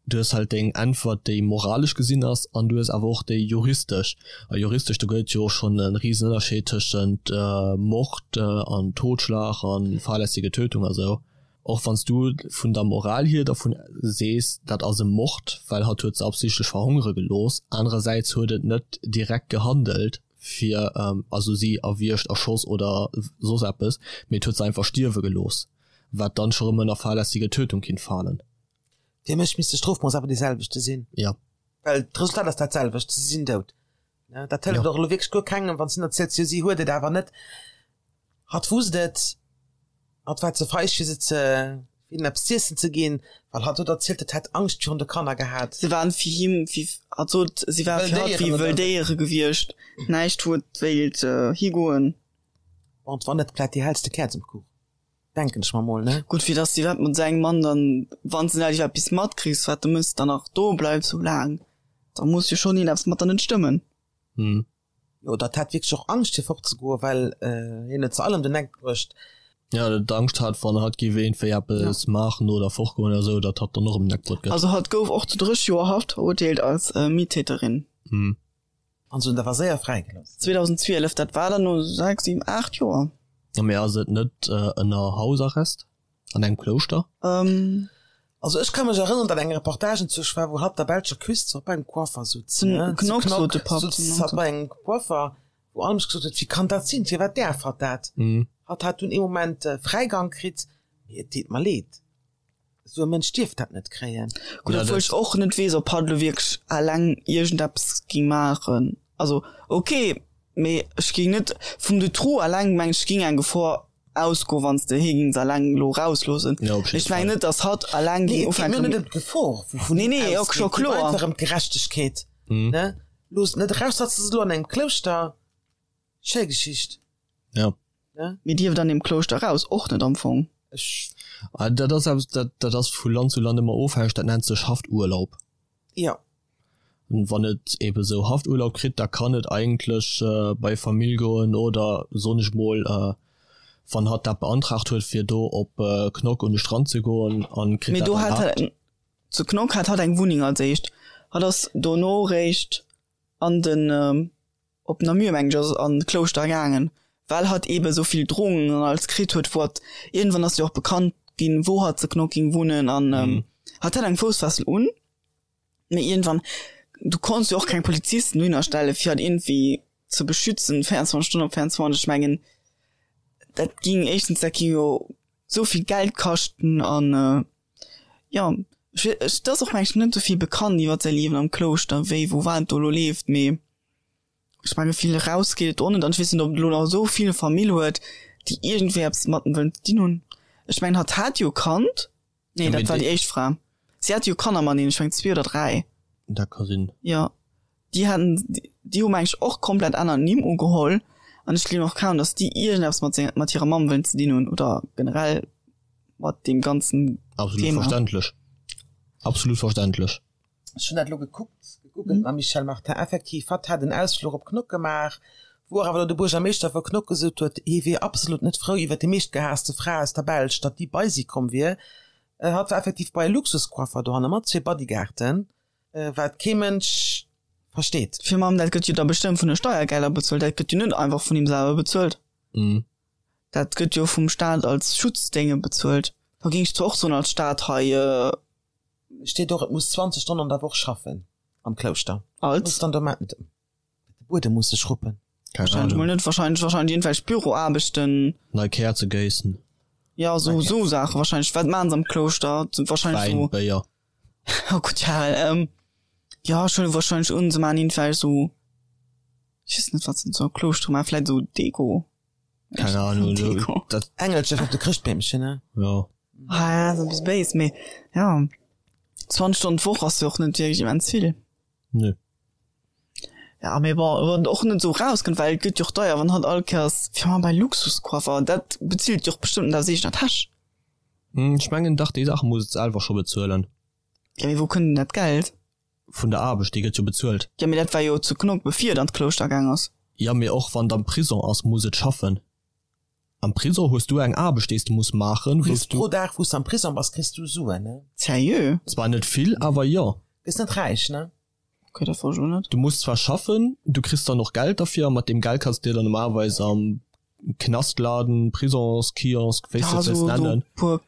S1: du hues halt deng Äntwert, déi moralesch gesinn ass, an du hues awer och déi juristesch. A juristesch, do gëtt et jo och schonn e risen Ënnerscheed tëschent äh, Mord äh, an Totschlag an fahrlässige Tötung a sou. Och wann s du vun der Moral hier dervun sees, dat ass e Mord, well hatt huet se absichtlech verhongere gelooss, anerersäits huet et net direkt gehandelt fir, also si erwiergt, erschoss oder soss eppes, mee et huet se einfach stierwe gelooss, wat dann scho rëm ënner fahrlässige Tötung kinnt falen.
S3: Fir mech misst de Strofmooss awer dee selwechte sinn.
S1: Jo.
S3: Well d'Resultat ass dat selwecht, se sinn dout. Dat hëlleft och elo wierklech guer kengem, wann s du erziels, jo si huet et awer net. Hatt wusst et, hatt war ze feig fir se ze fir hinnen eppes z'iessen ze ginn, well hatt huet erzielt, et hätt Angscht virun de Kanner gehat.
S2: Se waren fir him wéi, hatt sot, si ware fir hatt wéi wëll Déiere gewiescht, näischt wou et wéilt higoen.
S3: Bon, et war net grad déi hellste Käerz um Kuch, denken ech mer mol, ne?
S2: Gutt, fir dass de iwwerhaapt mat esou engem Mann dann, wann s de net iwwerhaapt eppes matkriss, wat de mëss, dann nach do bleifs sou laang. Da muss jo schonn iergendeppes mat der net stëmmen.
S3: Hm. Jo, dat hat wierklech och Angscht fir fortzegoen, well hien huet se all ëm den Eck bruecht.
S1: Ja, dat Angscht hat, wann hatt géif iergendwéi eppes maachen oder fortgoen oder esou, datt hatt dann och ëm den Eck bruet gëtt.
S2: Also hatt gouf och zu 30 Joer Haft verurteelt als Mittäterin.
S1: Hm.
S3: An se hunn awer séier fräigelooss.
S2: 2012, dat war dann no 6, 7, 8 Joer.
S1: Mee ass et net ënner Hausarrest an engem Klouschter?
S3: Also ech ka mech erënneren, datt eng Reportage entzwousch war, wou hatt der belscher Küst bei engem Coiffer sutz, ne? Zu Knock sutz hatt bei engem Coiffer, wou all Mënsch gesot huet, wéi kann dat sinn, firwat däerf hatt dat? Hatt hat dunn ee Moment Fräigang kritt, mee et deet mer leed. Esou e Mënsch dierf dat net kréien.
S2: Gutt, obwuel ech och net weess, ob hatt elo wierklech eleng iergendeppes géing maachen. Also ok, mee ech géing net vum Dutroux eleng, mengen ech, géing eng Gefor ausgoen, wann s de hie géings eleng elo erausloossen.
S1: Ja, op
S2: Mee ech mengen net, datt hatt eleng
S3: géing ufänken. Nee, et geet mir net ëm d'Gefor, wou vun
S2: him
S3: ausgeet. Et geet mir einfach ëm d'Gerechtegkeet, ne? Looss et net eraus, hatt ass elo an engem Klouschter. Schéi Geschicht.
S1: Ja.
S2: Mee dierft an deem Klouschter eraus och net am Fong.
S3: Ech.
S1: Ah, dat ass eppes, dat, dat ass vu Land zu Land ëmmer ofhängeg, dat nennt sech Hafturlaub.
S3: Jo.
S1: An wann et ebe sou Hafturlaub kritt, da kann et eigentlech bei Famill goen oder, soen ech mol, wann hatt dat beantragt huet, fir do op Knock un de Strand ze goen an kritt
S2: Mee
S1: dat
S2: do hat
S1: erlaabt.
S2: hat, zu Knock hat hatt eng Wunneng als éischt. Hatt ass dono réischt an den. op Namur mengen ech ass an d'Klouschter gaangen, well hatt eebe sou vill Drohungen an alles kritt huet, wou hatt, iergendwann ass jo och bekannt ginn, wou hatt zu Knock ging wunnen an hatt hat eng Foussfessel un, mee iergendwann, du konns jo och keng Polizisten dohinner stelle fir hatt iergendwéi ze beschützen 24 Stonnen op 24, ech mengen dat ging éischtens, dat ging jo sou vill Geld kaschten an jo, ech, et ass och mengen ech net sou vill bekannt iwwer säi Liewen am Klouschter, wéi wou wat do elo leeft, mee. Ech menge vill eraus geet et och net an ech weess net ob et elo nach esou vill Famill huet déi iergendwéi eppes mat em wëllen ze dinn hunn. Ech mengen hatt hat jo e Kand, nee dat war déi éischt Fra, si hat jo Kanner mateneen, ech mengen zwee oder dräi.
S1: Dat ka sinn.
S2: Jo déi haten, déi hu meng ech och komplett aner Nimm ugeholl an ech gleewen och kaum datt déi iergendeppes mat senger, mat hirer Mamm wëllen ze dinn hunn oder generell mat deem ganzen
S1: Absolut
S2: Thema.
S1: verständlech, absolut verständlech.
S3: Ech hunn dat elo gekuckt, gegoogelt mam Michelle Martin. Effektiv, hatt hat en Ausfluch op Knock gemaach, wou och awer elo de Buergermeeschter vu Knock gesot huet, hie wier absolut net frou iwwer déi meeschtgehaasste Fra aus der Belsch, datt déi bei si komm wier. Hatt war effektiv bei e Luxuscoiffer dohanne mat zwee Bodyguarden, wat kee Mënsch versteet.
S2: Fir mam, dat gëtt jo da bestëmmt vun de Steiergelder bezuelt, dat gëtt jo net einfach vun him selwer bezuelt. Dat gëtt jo vum Staat als Schutzdénge bezuelt. Da géing ech zwar och soen als Staat hei,
S3: Steet och, et muss 20 Stonnen an der Woch schaffen am Klouschter.
S2: Als?
S3: Muss dann do maachen. De Buedem muss sech ruppen.
S1: Keng
S2: Wahrscheinlech mol
S1: Ahnung.
S2: net, wahrscheinlech, wahrscheinlech iergendwelch Büroaarbechten.
S1: Nei Käerze géissen.
S2: Ja, sou, sou Saache wahrscheinlech. Wat maachen se am Klouschter? Wahrscheinlech
S1: Wäin,
S2: sou.
S1: Béier.
S2: Oh Gott, ja, ähm, ja, ech huele wahrscheinlech un, se maachen iergendwelch sou, ech weess net, wat se sou am Klouschter maachen, vläit sou Deko.
S1: Keng Ahnung,
S2: Deko.
S1: Dat.
S3: Engelcher fir op de Chrëschtbeemchen, ne?
S1: Jo.
S2: Ah ja, ass e bësse béis, mee ja, 20 Stonnen d'Woch ass jo och net wierklech immens vill.
S1: Nö.
S2: Ja, mee bon, wann et och net esou erauskënnt, well et gëtt jo och deier, wann hatt all Kéiers, fir mal bei Luxuscoiffer, dat bezilt jo och bestëmmt net aus eegener Täsch.
S1: Ech mengen dach, déi Saache muss et selwer scho bezuelen.
S2: Ja, mee wou kënnt denn dat Geld?
S1: Vun der Aarbecht, déi gëtt jo bezuelt.
S2: Ja, mee dat war jo zu Knock, bevir et an d'Klouschter gaang ass.
S1: Ja, mee och wann et am Prison ass, muss et schaffen. Am Prison hues du eng Aarbecht, déi s de muss maachen,
S3: wou s du. Pro Dag, wou s de am Prison bass, kriss du Suen, ne?
S2: Sérieux?
S1: Zwar net vill, awer jo.
S3: Gëss net räich, ne?
S2: Okay, dat wosst ech och net.
S1: Du muss zwar schaffen, du kriss dann och Geld derfir, a mat deem Geld kanns de dir dann normalerweis am Knastladen, Prisonskiosk, wéi s de et wëlls nennen.
S2: Ja, sou puer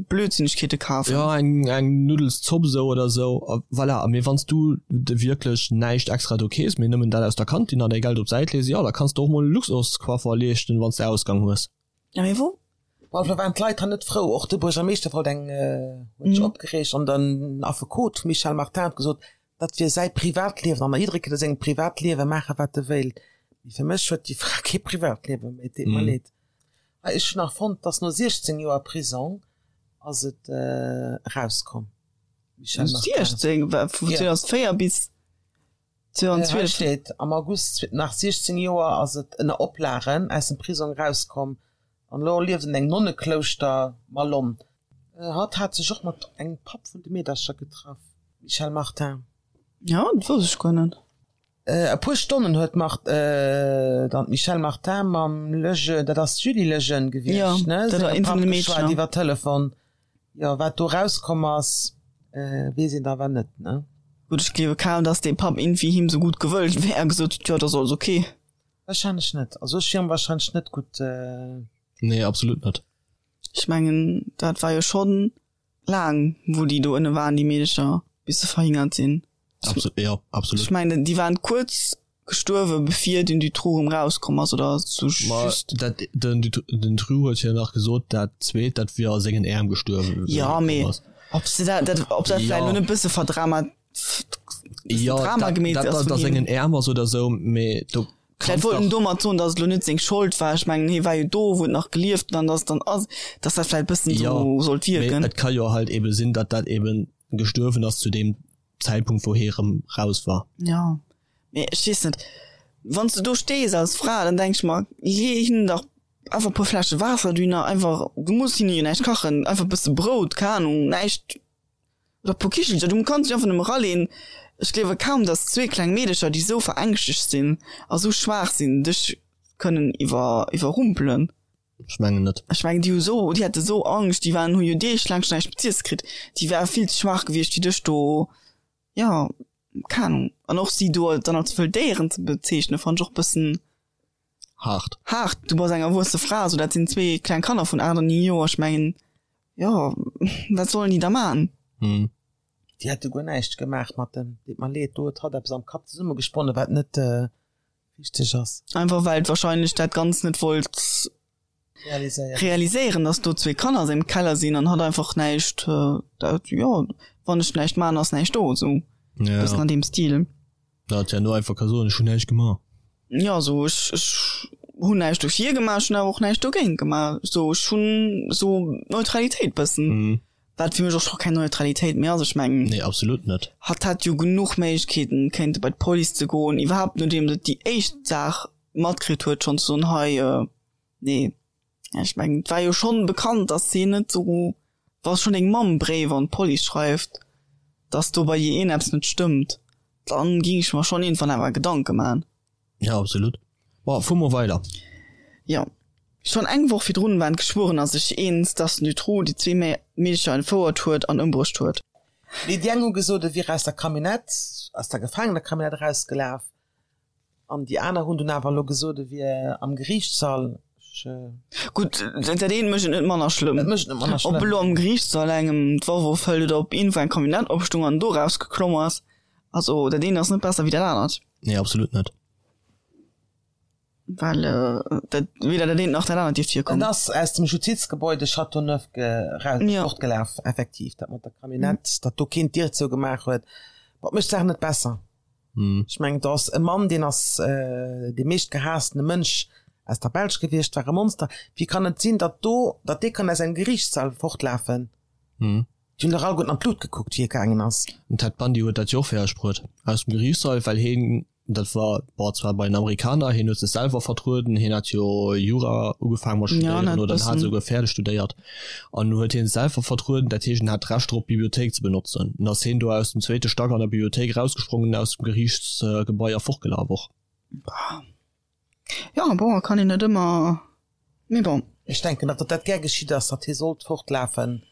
S2: Blödsinnegkeete kafen.
S1: Jo, eng, eng Nuddelszopp esou oder esou, a voilà. Mee wann s du de wierklech näischt extra do kees, mee nëmmen dat aus der Kantin an däi Geld op d'Säit lees, jo, da kanns de och mol e Luxuscoiffer leeschten, wann s de Ausgang hues.
S2: Ja, mee wou?
S3: Bon, da waren d'Leit han net frou. Och de Buergermeeschter wollt eng, huet sech opgereegt an den Affekot Michel Martin huet gesot, dat wier säi Privatliewen an jidderee kéint a sengem Privatliewe maache wat e wéilt. Mee fir mech huet déi Fra kee Privatliewe méi, et deet mer leed. Hei, ech hunn nach fonnt, dass no 16 Joer Prisong ass et erauskomm.
S2: Michel Martin. 16? Vu 2004 bis
S3: 2012? Hei steet, am August nach 16 Joer ass et ënner Oplagen aus dem Prisong erauskomm an elo lieft en engem Nonneklouschter Malonne. Hatt hat sech och mat engem Papp vun de Meedercher getraff, Michel Martin.
S2: Ja, dat wousst ech guer net.
S3: E puer Stonnen huet Mart, dann d'Michèle Martin mam Lejeune, dat ass d'Julie Lejeune gewiescht, ne?
S2: Jo, dat war eent vun de Meedcher.
S3: Iwwer Telefon. Jo, wat do rauskomm ass, weess een awer net, ne?
S2: Gutt, ech gleewe kaum, dass dee Papp iergendwéi him sou gutt gewëllt wär a gesot huet, jo, dat ass alles ok.
S3: Wahrscheinlech net. Also ech wier em wahrscheinlech net gutt.
S1: Nee, absolut net.
S2: Ech mengen, dat war jo schonn laang, wou déi do ënne waren, déi Meedecher, bis se verhingert sinn.
S1: Absolut, jo, absolut.
S2: Ech mengen, déi waren kuerz gestuerwe bevir den Dutroux erëm rauskomm ass, oder sou
S1: Ma
S2: just.
S1: dat, den Dut, den Dutroux huet jo nach gesot, dat zweet, dat wier a sengen Äerm gestuerwen, wéi
S2: Jo,
S1: e komm
S2: mee
S1: ass.
S2: ob se dat, dat, ob dat vläicht
S1: Jo.
S2: elo net e bësse verdrama, bëssen
S1: Jo,
S2: Drama
S1: dat,
S2: gemeet
S1: dat
S2: ass
S1: dat
S2: vun
S1: a
S2: him.
S1: sengen Äerm ass oder sou, mee do
S2: Vläicht
S1: kanns
S2: wollt en
S1: dach.
S2: domat soen, datt et elo net seng Schold war. Ech mengen, hie war jo do, wou et nach gelieft huet, an datt et dann ass, datt dat vläicht e bëssen
S1: Jo,
S2: sou sollt
S1: mee
S2: wierken.
S1: et ka jo halt ebe sinn, datt dat eben gestuerwen ass zu deem Zäitpunkt, wou hie rëm raus war.
S2: Jo, mee ech weess net, wann s du do stees als Fra, dann denk ech mer, lee hinnen dach einfach e puer Fläsche Waasser dohinner, einfach, du muss hinne jo näischt kachen, einfach e bësse Brout, keng Ahnung, näischt, oder e puer Kichelcher, du kanns dech einfach nëmme eraleen. Ech gleewe kaum, dass zwee kleng Meedecher, déi sou verängschtegt sinn a sou schwaach sinn, dech kënnen iwwer, iwwerrumpelen.
S1: Ech mengen net.
S2: Ech mengen, déi hu sou, déi hate sou Angscht, déi waren, hu jo deeglaang schonn näischt méi z'iesse kritt, déi ware vill ze schwaach gewiescht, fir dech do, jo, keng Ahnung. An och si do dann als wëll Déieren ze bezeechnen, fannt ech och bëssen
S1: Haart.
S2: haart. Du bass eng erwuesse Fra, sou dat sinn zwee kleng Kanner vun 8 an 9 Joer, ech mengen, jo, wat sollen déi da man?
S1: Hm.
S3: Déi hätte guer näischt gemaach mat dem, deet mer leed, do huet hatt eppes am Kapp zesummegesponnen, wat net richteg ass.
S2: Einfach well et wahrscheinlech dat Ganzt net wollt
S3: Realiséieren.
S2: realiséieren, dass do zwee Kanner a sengem Keller sinn an hatt einfach näischt, dat, jo, wann ech näischt man, ass näischt do, sou
S1: Ja.
S2: bëssen an deem Stil.
S1: Da hat ja no einfach ka soen, ech hunn näischt gemaach.
S2: Jo, sou ech, ech hunn näischt dofir gemaach, ech hunn awer och näischt dogéint gemaach, sou ech hunn sou Neutralitéit bëssen.
S1: Mhm.
S2: Wat fir mech och scho keng Neutralitéit méi ass. Ech mengen.
S1: Nee, absolut net.
S2: Hatt hätt jo genuch Méiglechkeeten, kéinte bei d'Police ze goen, iwwerhaapt nodeems et déi éischt Saach matkritt huet, schonn ze soen, hei, nee. Ech mengen, et war jo schonn bekannt, datt si net esou, wa schonn deng Mamm Bréiwer un d'Police schreift, datt do bei dir iergendeppes net stëmmt, dann géing ech mer schonn iergendwann awer Gedanke man.
S1: Ja, absolut. Bon, fuer mol weider.
S2: Jo. Schonn eng Woch virdrun waren d'Geschwuerener sech eens, dass den Dutroux déi zwee Meedercher entfouert huet an ëmbruecht huet.
S3: Mee déi eng hu gesot, e wier aus der Camionnette, aus der Gefaangener-Camionnette erausgelaf, an déi aner hunn dunn awer elo gesot, e wier am Geriichtssall. Ech.
S2: Gutt, dat eent mécht et net manner schlëmm.
S3: Et mécht et net manner schlëmm.
S2: Ob elo am Geriichtssall engem d'Waff ofhëlt oder ob iergendwou eng Camionnette opstung an do erausgeklomm ass. Also dat eent ass net besser wéi dat anert.
S1: Nee, absolut net.
S2: Well dat weder dat eent nach dat anert dierft virkommen.
S3: En ass aus dem Justizgebäude Châteauneuf
S2: Ja.
S3: fortgelaf, effektiv. Dat mat der Camionnette, datt do keen d'Dier zougemaach huet, dat mécht d'Saach net besser. Ech mengen, do ass e Mann, deen ass dee meeschtgehaasstene Mënsch aus der Belsch gewiescht, war e Monster. Wéi kann et sinn, datt do, datt dee kann aus engem Geriichtssall fortlafen? Déi hunn dach alleguerten an d'Lut gekuckt, wéi e gaangen ass.
S1: Den Ted Bundy huet dat jo och fäerdeg bruet aus dem Geriichtssall, well heen, dat war bon zwar bei den Amerikaner, heen huet sech selwer vertrueden, heen hat jo Jura ugefaangen mat studéieren oder en hat esouguer fäerdeg studéiert an huet hien sech selwer vertrueden, dat heescht en hat d'Recht drop d'Bibliothéik ze benotzen. An ass heen do aus dem zweete Stack an der Bibliothéik erausgesprongen, aus dem Geriichtsgebai a fortgelaf och.
S2: Jo, bon, kann een net ëmmer, mee bon.
S3: Ech denken, datt dat gär geschitt ass, datt hie sollt fortlafen,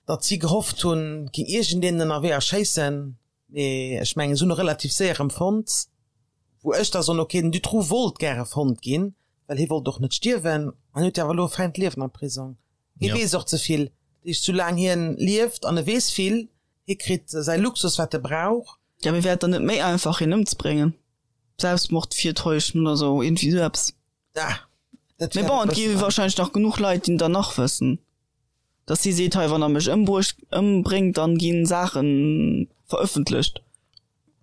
S3: datt si gehofft hunn, et géing iergendeen ënnerwee erschéissen, mee ech mengen, se hunn e relativ séier erëm fonnt, wou ech da soen, ok, den Dutroux wollt gäre fonnt ginn, well hie wollt och net stierwen an huet jo awer elo e fäint Liewen am Prisong. Hie weess och ze vill, dat heescht, soulaang hien lieft an e weess vill, hie kritt säi Luxus, wat e brauch.
S2: Jo, mee wär et dann net méi einfach, hien ëmzebréngen? Selbstmord virtäuschen oder sou, iergendwéi sou eppes.
S3: Ah, dat
S2: Mee
S3: wär
S2: bon,
S3: e
S2: et gi
S3: bëssen
S2: wahrscheinlech nach genuch Leit, déi dann nach wëssen, dass si seet, hei, wann der mech ëmbruecht, ëmbréngt, dann gi Saache verëffentlecht.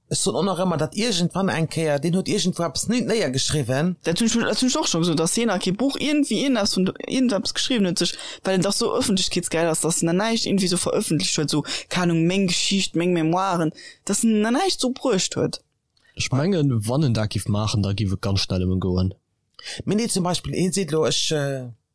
S3: Ech soen och nach ëmmer, datt iergendwann eng Kéier, deen huet iergendwou eppes néiergeschriwwen.
S2: Dat hunn ech, dat hunn ech och scho gesot, dass hien nach kee Buch, iergendwéi iergendeppes vun, iergendeppes geschriwwen huet, sech, well en dach sou ëffentlechkeetsgeil ass, dass en nach näischt iergendwéi sou verëffentlecht huet, sou, keng Ahnung, meng Geschicht, meng Memoiren, dass en nach näischt sou bruecht huet.
S1: Ech mengen, wann en dat giff maachen, da giff et ganz schnell ëm en goen.
S3: Mee nee, zum Beispill, hien seet elo, ech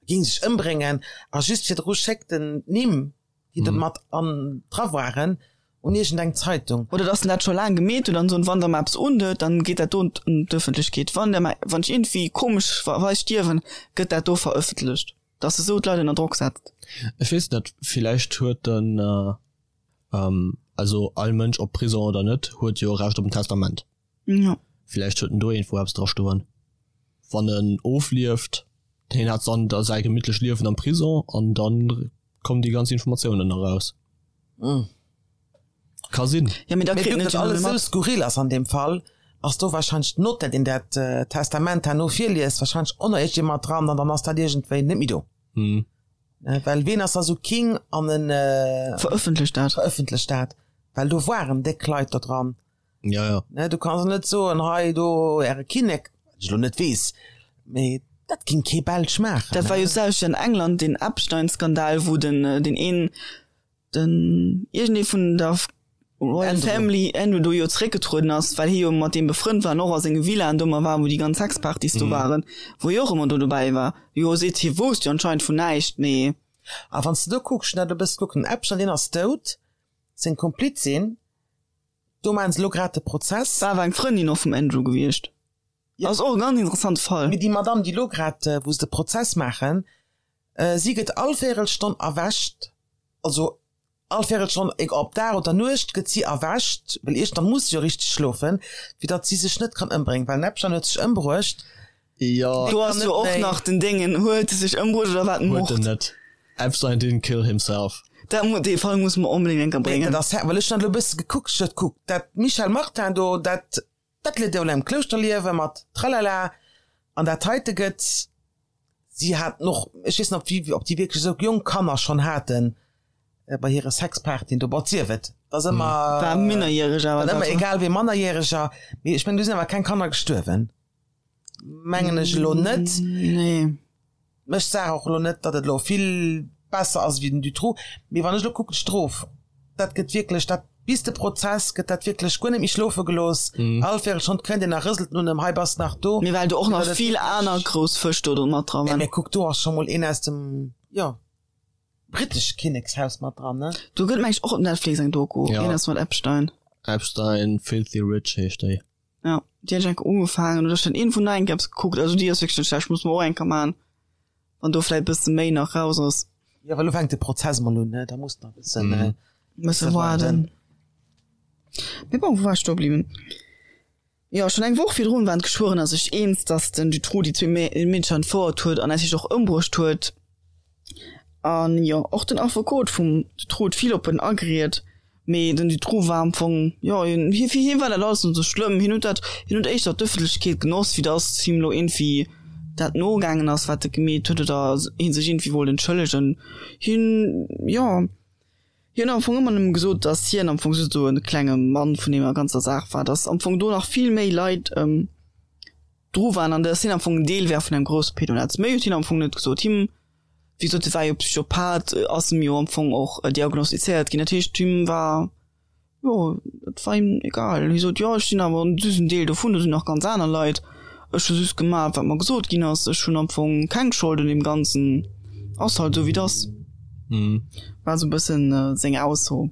S3: géing sech ëmbréngen, a just virdru schéckt en d'Nimm, déi do mat an dra waren. Un iergend eng Zeitung.
S2: Oder dass en dat scho laang gemeet huet an soen, wann der mer eppes undeet, dann geet dat do un d'Ëffentlechkeet. Wann der mer, wann ech iergendwéi komesch weis stierwen, gëtt dat do verëffentlecht. Dass e sou d'Leit ënner Drock setzt.
S1: Ech weess net, villäicht huet en, also all Mënsch, ob Prison oder net, huet jo e Recht op en Testament.
S2: Jo.
S1: Villäicht huet en do iergendwou eppes dra stoen. Wann en oflieft, hien hat dann da säi gemittlecht Liewen am Prison an dann kommen déi ganz Informatiounen eraus. Ka sinn.
S2: Ja, mee da
S3: Mee
S2: kritt
S3: vu
S2: en
S3: datt
S2: et jo net
S3: alles
S2: méi
S3: esou
S2: mat.
S3: skurril ass an deem Fall, ass do wahrscheinlech d'Notaire, deen dat Testament herno virliest, wahrscheinlech och nach iergendjemand dran an dann ass dat iergendwéi net méi do. Well ween ass da sou king an en
S2: Verëffentlecht dat.
S3: verëffentlecht dat? Well do waren déck Leit do dran.
S1: Ja, ja.
S3: Ne, du kanns net soen, hei do äre Kinnek, wat ech elo net weess, mee dat ging kee Belsch maachen.
S2: Dat war jo d'selwecht an England, deen Epstein-Skandal, wou den, deen een, den iergendee vun der Royal
S3: Andrew.
S2: Family, Andrew, do jo zeréckgetrueden ass, well hie jo mat deem befrënnt war an och a senge Villaen do ëmmer war, wou déi ganz Sexpartys do waren, wou hie och ëmmer do dobäi war. Jo seet, hie wousst jo anscheinend vun näischt, mee.
S3: A wann s de do kucks, ech hunn dat e bësse kuckt, den Epstein, deen ass dout, seng Komplizin, Do maachen se elo grad de Prozess.
S2: War awer eng Frëndin och vum Andrew gewiescht.
S3: Jo.
S2: Ass och e ganz interessante Fall.
S3: Mee déi Madame, déi elo grad, wou se de Prozess maachen, si gëtt all Véierelstonn erwächt, also all Véierelstonn, egal ob Dag oder Nuecht, gëtt si erwächt, well iergendwann muss si jo richteg schlofen, fir datt si sech net kann ëmbréngen, well den Epstein huet sech ëmbruecht.
S1: Jo.
S2: Do ass jo och nach den Déngen, huet e sech ëmbruecht oder war et
S1: Huet en
S2: Mord?
S1: net. Epstein didn't kill himself.
S2: Dat mu, dee Fall musse mer onbedéngt eng Kéier
S3: Nee,
S2: bréngen.
S3: dat ass, well ech hunn dat elo e bësse gekuckt, ech huet kuckt, dat Michelle Martin do, dat, dat lieft jo elo am Klouschterliewe mat Tralala, an dat heite gëtt, si haten och, ech weess net, ob déi, ob déi wierklech esou jonk Kanner schonn haten bei hire Sexpartyen do, bon, sief et, dat ass ëmmer,
S2: War minnerjäreg awer
S3: dat
S2: dat,
S3: ëmmer egal wéi Mannerjäreger, mee ech mengen, do sinn awer keng Kanner gestuerwen. Mengen ech elo net.
S2: Nee.
S3: Mécht d'Saach och elo net, datt et elo vill besser ass wéi den Dutroux. Mee wann ech elo kucken, d'Strof, dat gëtt wierklech, dat bis de Prozess gëtt dat wierklech guer net méi schlofe gelooss. All Véierelstonn kënnt een a rëselt un ëm, hei bass nach do.
S2: Mee well do och nach vill aner grouss Fësch do mat dra waren.
S3: Mee kuck, do ass scho mol een aus dem, jo, brittesche Kinnekshaus mat dran, ne?
S2: Do gëtt meng ech och op Netflix eng Doku,
S1: Ja.
S2: een ass mat Epstein.
S1: Epstein, Filthy Rich heescht déi.
S2: Ja, déi hunn ech enke ugefaangen oder ech hunn iergendwou nach eng Kéier eppes gekuckt. Also déi ass wierklech net schlecht, muss mer och eng Kéier maachen, wann do vläit e bësse méi nach raus ass.
S3: Jo, well elo fänkt de Prozess mol un, ne? Da muss nach e bëssen,
S1: Mhm.
S2: Bësse waarden. Mee bon, wou war ech stoe bliwwen? Jo, schonn eng Woch virdrun waren d'Geschwuerener sech eens, datt den Dutroux déi zwee Meedercher entfouert huet an natierlech och ëmbruecht huet. An jo, och den Affekot vum Dutroux huet vill op en ageriet, mee den Dutroux war am Fong, jo, hie, fir hie war dat alles net esou schlëmm. Hien huet dat, hien huet éischter d'Ëffentlechkeet genoss, wéi datt him elo iergendwéi dat nogaangen ass, wat e gemeet huet, oder hie sech iergendwéi wollt entschëllegen. Hien, jo, hien huet am Fong ëmmer nëmme gesot, datt hien am Fong just esou e klenge Mann vun deemer ganzer Saach war, datt am Fong do nach vill méi Leit dru waren an datt hien am Fong en Deel wär vun engem grousse Pedonetz. Méi huet hien am Fong net gesot. Him, wéi gesot, hie war jo Psychopath, ass em jo am Fong och diagnostizéiert ginn. Dat heescht, him war, jo, et war him egal. Hie sot, jo, ech sinn awer just en Deel dovun, do sinn nach ganz aner Leit. Ech hu just gemaach, wat mer gesot ginn ass. Ech hunn am Fong keng Schold un deem Ganzen. Ass halt esou, wéi et ass. War esou e bëssen seng Ausso.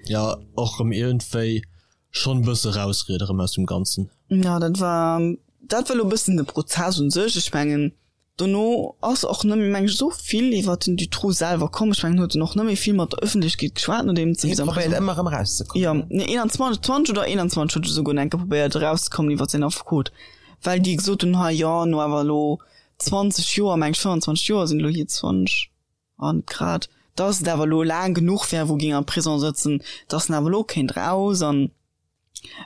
S1: Jo, och erëm iergendwéi Schon bësse rausriede rem aus dem ganzen.
S2: Jo dat war dat war lo bëssen de Prozess un sech. Ech mengen dono ass och net méi meng ech esou vill iwwert den Dutroux selwer komm. Ech mengen huet en och net méi vill mat der Ëffentlechkeet geschwat nodeems
S3: Hie probéiert ëmmer erëm erauszekommen.
S2: Jo nee 21 20 oder 21 huet e souguer enke probéiert erauszekommen iwwert säin Affekot, well déi gesot hunn hei jo no awer elo 20 Joer meng ech 25 Joer sinn elo hier 20 An grad dass et awer elo laang genuch wär, wou ging am Prison sëtzen, dass en awer elo kéint raus. An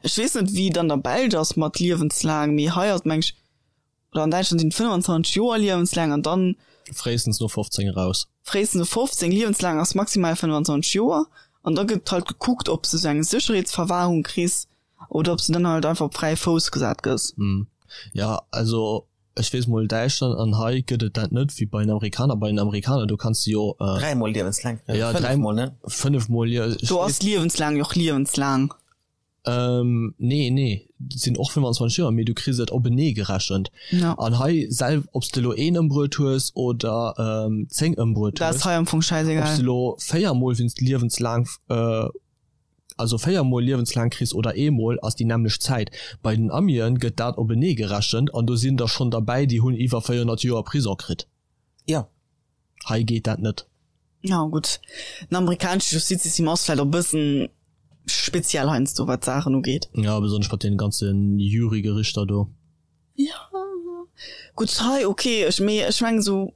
S2: ech weess net, wéi et an der Belsch ass mat liewenslaang, mee hei ass et meng ech, oder an Däitschland sinn et 25 Joer liewenslaang an dann.
S1: Fréistens no 15 eraus.
S2: Fréistens no 15, liewenslaang ass maximal 25 Joer. An da gëtt halt gekuckt, ob s de sou eng Sécherheetsverwahrung kriss oder ob s de dann halt einfach op fräie Fouss gesat gëss.
S1: Jo, also Ech weess mol Däitschland an hei gëtt et dat net wéi bei den Amerikaner. Bei den Amerikaner do kanns de jo
S3: Dräimol liewenslaang kréien,
S1: ja,
S3: fënnefmol, ne?
S1: Fënnefmol, jo. Ech
S2: Do ass liewenslaang jo och liewenslaang.
S1: Ähm, nee, nee, dat sinn och 25 Joer, mee du kriss et openee gerechent.
S2: Ja.
S1: An hei sel ob s de elo een ëmbruet hues oder 10 ëmbruet
S2: Dat
S1: hues,
S2: ass hei am Fong
S1: ob s
S2: schäisegal.
S1: de elo véiermol wéinst liewenslaang. also 4 mol liewenslaang kriss oder eemol, ass déi nämmlecht Zäit. Bei den Amien gëtt dat openee gerechent an do sinn der schonn derbäi, déi hunn iwwer 400 Joer Prison kritt.
S3: Jo.
S1: Hei geet dat net.
S2: Jo gutt, den amerikanesche Justizsystem ass vläicht och e bëssen speziell heiansdo wat d'Saachen ugeet.
S1: Jo, besonnesch mat deene ganze Jurygerichter do.
S2: Jo, gutt hei ok, ech mee ech mengen esou,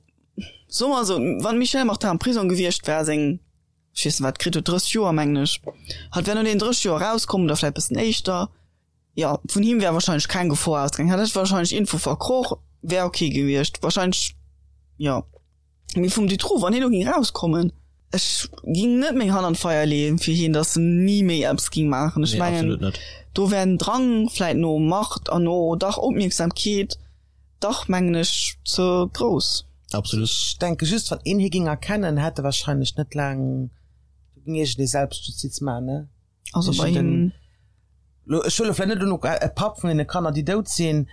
S2: soe mer esou, wann d'Michelle Martin am Prisong gewiescht wär, seng, ech weess net wat kritt huet, 30 Joer mengen ech, hatt wär no deenen 30 Joer erauskomm oder vläicht bëssen éischter, jo, vun him wär wahrscheinlech keng Gefor ausgaangen, hatt hätt wahrscheinlech Info verkroch, wär ok gewiescht wahrscheinlech, jo. Mee vum Dutroux, wann hien elo ging rauskommen, ech ging net meng Hand an d'Feier leeën fir hien, datt en ni méi eppes ging maachen. Ech
S1: Nee,
S2: mengen,
S1: absolut net.
S2: do wär den Drang vläit no Macht an no dach Opmierksamkeet dach, mengen ech, ze grouss.
S1: Absolut.
S3: Ech denke just, wann een hie ging erkennen, hätt e wahrscheinlech net laang, do ging iergendee Selbstjustiz maachen, ne?
S2: Also bei him.
S3: Elo, ech huele vläit net elo e Papp vun deene Kanner, déi dout sinn,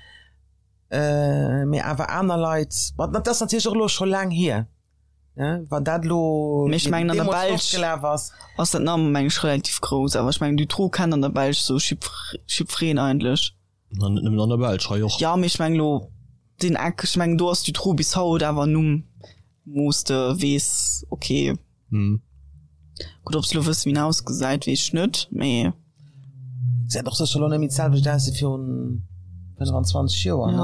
S3: Mee awer aner Leit, ma dat ass natierlech och elo scho laang hier, ne, wann dat elo
S2: Mee ech mengen an der
S3: deemools
S2: Belsch
S3: fortgelaf ass.
S2: ass dat nach meng ech relativ grouss, awer ech mengen Dutroux kennt an der Belsch sou jiddwereen eigentlech.
S1: Na net nëmmen an der Belsch, hei och.
S2: Jo, mee ech mengen elo deen Eck, ech mengen do ass Dutroux bis haut awer en Numm wou s de weess, ok. Gutt, ob se elo wëssen, wéi en ausgesäit, weess ech net, mee.
S3: Gesäit och sécher elo net méi d'selwecht aus wéi virun 25 Joer,
S2: ne?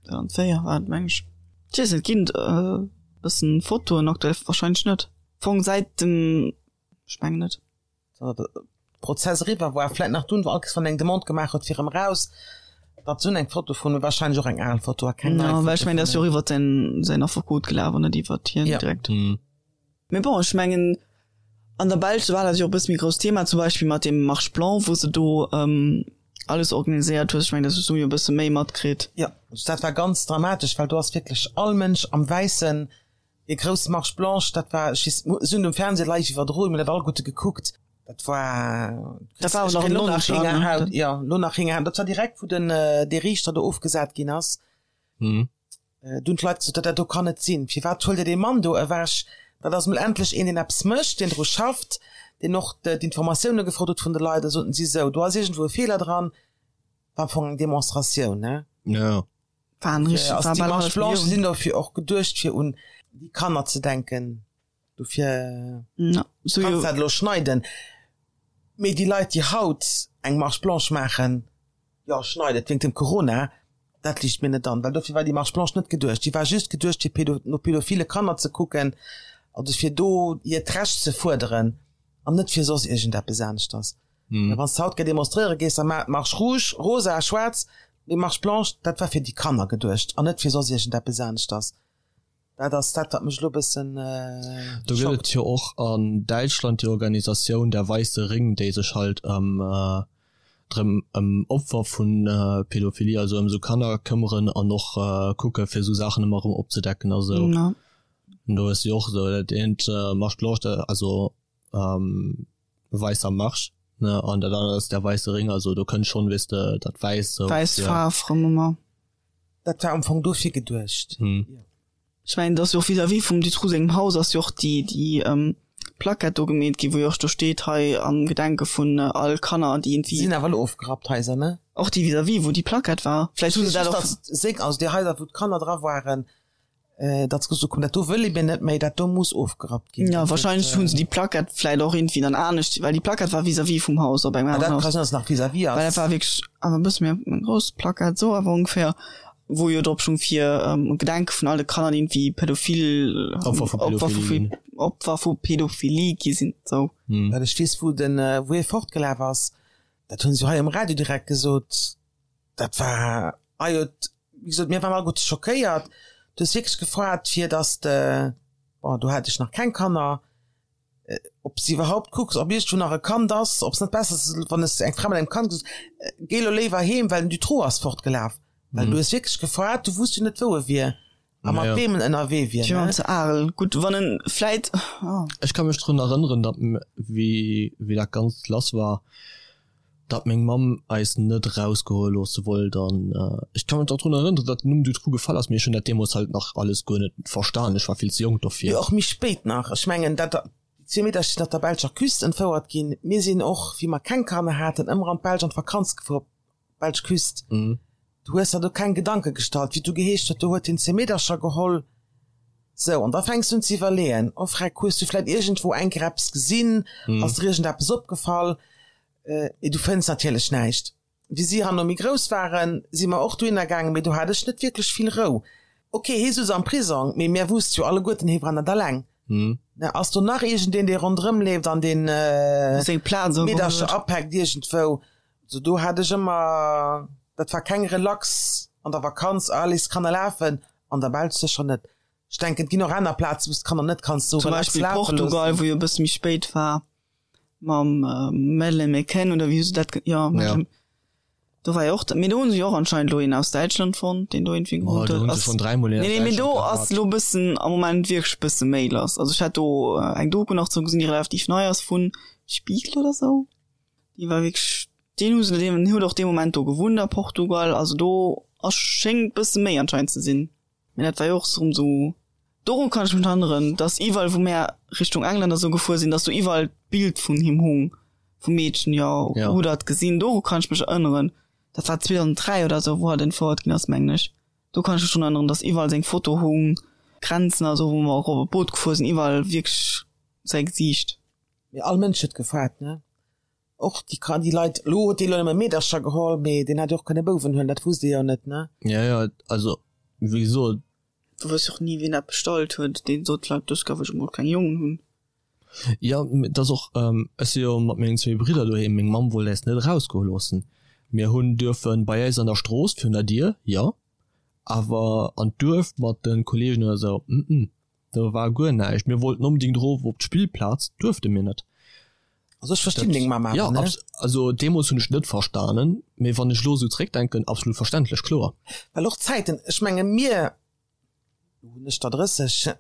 S2: Ja, 2004 war et, meng ech. Ech weess net, ginn et e bëssen Fotoen aktuell? Wahrscheinlech net. Am Fong säit dem, ech mengen net.
S3: Prozess eriwwer war, vläit nach dunn, wou all Kees wann eng Demande gemaach huet fir erëm raus, datt se hunn eng Foto vun, wahrscheinlech och eng al Foto a keng nei
S2: Foto. Well ech mengen, dat ass jo och iwwer säin, säin Affekot gelaf an net iwwer hien direkt. Mee bon, ech mengen, an der Belsch war dat jo och e bësse méi grousst Thema, zum Beispill mat deem Marche blanc, wou se do alles organiséiert huet. Ech mengen, dat hues du jo e bësse méi matkritt.
S3: Jo, dat war ganz dramatesch, well do ass wierklech all Mënsch am Wäissen Déi grouss Marche blanche, dat war, ech weess, se hunn um Fernseh live iwwerdroen, mir hunn dat alleguerte gekuckt, dat war,
S2: Dat war awer nach
S3: elo nach Héngerhaut, jo, elo nach Héngerhaut, dat war direkt wou den, dee Riichter do ofgesat ginn ass, do hunn d'Leit gesot, dat do kann net sinn, firwat huelt Dir dee Mann do ewech, dat ass mol endlech een, deen eppes mécht, deen dru schafft, deen och d'Informatioune gefrot huet vun de Leit, da soten si sou, do ass iergendwou e Feeler dran, war am Fong eng Demonstratioun, ne?
S1: Jo.
S2: War richtig,
S3: war
S2: bal
S3: déi Marche
S2: hallef
S3: Blanche
S2: Millioun.
S3: sinn dofir och geduecht fir un déi Kanner ze denken. Dofir
S2: Ja, so
S3: kanns
S2: jo.
S3: dat elo schneiden. Mee déi Leit déi haut eng Marche Blanche maachen, jo schneit et wéingt dem Corona, dat liicht mir net an, well dofir war déi Marche Blanche net geduecht. Déi war just geduecht fir pedo no pedophile Kanner ze kucken, also fir do hiert Recht ze fuerderen an net fir soss iergendeppes aneschters. Wann s de haut ge demonstréiere gees, da maach d'Marche rouge, rosa, schwaarz, mee Marche blanche, dat war fir déi Kanner geduecht an net fir soss iergendeppes aneschters. Dat ass dat, wat mech elo e bëssen
S1: Do gëtt
S3: schockt.
S1: et jo och an Däitschland déi Organisatioun Der Weiße Ring, déi sech halt ëm drëm ëm Opfer vu Pädophilie, also ëm esou Kanner këmmeren an och kucke fir esou Saachen ëmmer erëm opzedecken a sou. An do ass jo och esou dat eent Marche blanche, also Weißer Marsch, ne, an dat anert ass der Weiße Ring, also do kënnt schonn, weess de, dat Wäiss sou.
S2: Wäiss Faarf rëm ëmmer.
S3: Dat war am Fong dofir geduecht.
S2: Ech mengen, et ass jo och vis-à-vis vum Dutroux sengem Haus ass jo och déi, déi Plackett do gemeet ginn, wou jo och do steet, hei am Gedenke vun all Kanner, déi iergendwéi.
S3: Sinn awer elo ofgerappt, d'Haiser, ne?
S2: Och déi vis-à-vis, wou déi Plackett war. Vläicht hu se dat och.
S3: Just, datt seng, also déi Haiser, wou d'Kanner dra waren, Datt se gesot hunn, dat do wëlle mir net méi, dat do muss ofgerappt ginn.
S2: Jo, wahrscheinlech hu se déi Plackett vläit och iergendwéi dann anescht, well déi Plackett war vis-à-vis vum Haus, op engem aneren
S3: Haus. Dat ka sinn, datt se nach vis-à-vis ass.
S2: Well dat war wierklech awer e bësse méi eng grouss Plackett, esou awer ongeféier, wou jo drop stoung fir um Gedenke vun all de Kanner, déi iergendwéi pädophil,
S1: Opfer vu
S2: Opfer vu
S1: Pädophilie ginn.
S2: Opfer vu Pädophilie gi sinn, esou.
S3: Well ech weess, wou den, wou hie fortgelaf ass, dat hu se jo hei um Radio direkt gesot, Dat war, ah jo, wéi gesot, mir waren alleguerte schockéiert. Du hues wierklech gefroert, fir dass de, bon, do hat ech nach keng Kanner, ob s de iwwerhaupt kucks, ob iergendwou nach e Kand ass, ob s net besser ass, wann s eng Fra mat engem Kand gesot, géi elo léiwer heem, well den Dutroux ass fortgelaf. Well du hues wierklech gefroert, du wusst jo net, wou e wier a mat weem en ënnerwee wier.
S2: Fir an ze Arel. Gutt, wann en vläit.
S1: Ech ka mech drun erënneren, datt wéi wéi dat Ganzt lass war, datt meng Mamm eis net erausgoe loosse wollt an ech ka mech och drun erënneren, datt den Numm Dutroux gefall ass, mee ech hunn dat deemools halt nach alles guer net verstan, ech war vill ze jonk dofir.
S3: Jo, och méi spéit nach. Ech mengen, dat déi. Déi zwee Meedercher sinn op der belscher Küst entfouert ginn. Mir sinn och, wéi mer keng Kanner haten, ëmmer an d'Belsch an d'Vakanz gefuer, op d'belsch Küst. Du hues der do keng Gedanke gestallt, wéi et du geheescht huet, do huet hien zwee Meedercher geholl. Sou, an da fänks du un ze iwwerleeën, oh Freck, hues du vläit iergendwou eng Kéier eppes gesinn, ass der iergendeppes opgefall? Mee du fënns natierlech näischt. Wéi si herno méi grouss waren, si mer och dohinner gaangen, mee do hat ech net wierklech vill Rou. Ok, hie souz am Prisong, mee mär wusste jo alleguerten, hie war net alleng. Ne, ass do nach iergendeen, dee ronderëm leeft an deen
S2: Seng Plaz
S3: ugeholl huet. Meedercher apäckt iergendwou? Also do hat ech ëmmer, dat war keng Relax an der Vakanz, ah, léiss d'Kanner lafen, an der Belsch sécher net. Ech denken, et ginn och aner Plazen, wou s d'Kanner net kanns
S2: sou
S3: Zum
S2: relax Beispill lafe Portugal, loossen. wou jo e bësse méi spéit war mam Madeleine McCann oder wéi hu se dat, jo, Madeleine, do war jo och, mee do hu se jo och anscheinend elo een aus Däitschland fonnt, deen do iergendwéi
S1: Oh, gewunnt
S2: do
S1: huet. hunn se Ass, schonn dräimol een
S2: nee,
S1: aus
S2: nee, mee
S1: Däitschland
S2: do ass
S1: gehat.
S2: elo e bëssen am Moment wierklech e bësse méi lass. Also ech hat do eng Doku nach zou gesinn, déi relativ nei ass, vun Spiegel oder sou. Déi war wierklech, deen hu se, deen huet och dee Moment do gewunnt a Portugal, also do ass, schéngt bësse méi anscheinend ze sinn. Mee dat war jo och erëm sou, doru kann ech mech erënneren, dass iwwerall wou mär Richtung England a sou gefuer sinn, dass do iwwerall d'Bild vun him hung, vum Meedchen, jo,
S1: Ja.
S2: hutt der et gesinn? Doru kann ech mech erënneren. Dat war 2003 oder sou, wou hatt entfouert ginn ass, mengen ech. Do kann ech mech drun erënneren, dass iwwerall seng Foto hung, Grenzen a sou, wou mer och op e Boot gefuer sinn, iwwerall wierklech säi Gesiicht.
S3: Mee all Mënsch huet gefaart, ne? Och déi Kan, déi Leit, elo huet dee lo nëmme Meedercher geholl, mee deen hätt jo och kënne Bouwen huelen, dat wusst ee jo net, ne?
S1: Ja, ja, also wéi gesot.
S2: Du wëss och ni, wien dat bestallt huet. Deen sot vläicht, dës Kéier wëll ech emol keng Jongen hunn.
S1: Jo, mee et ass och, ech si jo mat mengen zwéi Bridder doheem, meng Mamm wollt äis net erausgoe loossen. Mir hunn duerfe bei äis an der Strooss virun der Dier, jo, awer an d'Duerf mat de Kollegen oder sou, mm. Do war guer näischt. Mir wollten onbedingt erof op d'Spillplaz, duerfte mir net.
S3: Also ech verstinn deng Mamm awer,
S1: Ja,
S3: ne?
S1: also deemools hunn ech net verstanen, mee wann ech elo esou zréckdenken, absolut verständlech, kloer.
S3: Well och d'Zäiten, ech menge mir, lo hunn ech der 30,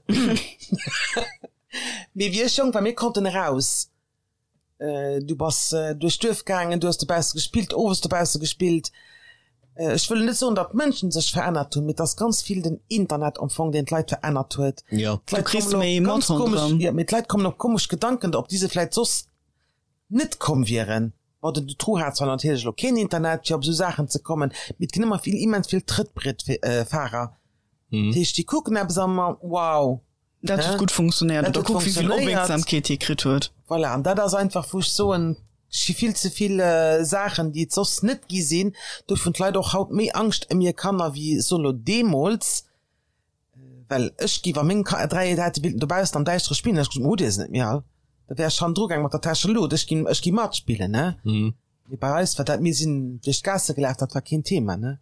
S3: mee wéi ech jonk war, mir konnten eraus. Du bass duerch d'Duerf gaangen, du hues dobausse gespillt, owes dobausse gespillt. Ech wëll net soen, datt d'Mënschen sech verännert hunn, mee et ass ganz vill den Internet am Fong, deen d'Leit verännert huet.
S1: Jo.
S3: D'Leit
S2: Du kriss
S3: kommen op
S2: méi mat
S3: ganz komesch,
S2: ronderëm.
S3: jo, mee d'Leit kommen op komesch Gedanken, op déi se vläit soss net komm wieren. Bon, den Dutroux hat zwar natierlech elo keen Internet, fir op esou Saachen ze kommen, mee et ginn ëmmer vill, immens vill Trëttbrietfahrer. Dat heescht, déi kucken eppes an, wow,
S2: Dat huet gutt funktionéiert. Oder kuck, wéi vill Opmierksamkeet hie kritt huet.
S3: Voilà, an dat ass einfach, wou ech soen, et gi vill ze vill Saachen, déi et soss net gi sinn. Dofir hunn d'Leit och haut méi Angscht ëm hir Kanner wéi, ech soen elo, deemools. Well ech gi, wa meng 3 hätte wéilten dobaussen am Däischtere spillen, hätt ech gesot, Hutt Dir se net méi all? Da wär ech hannendru gaang mat der Täschelut, ech ginn, ech gi matspillen, ne? Mee bei eis war dat, mir sinn duerch d'Gaasse gelaf, dat war keen Thema, ne?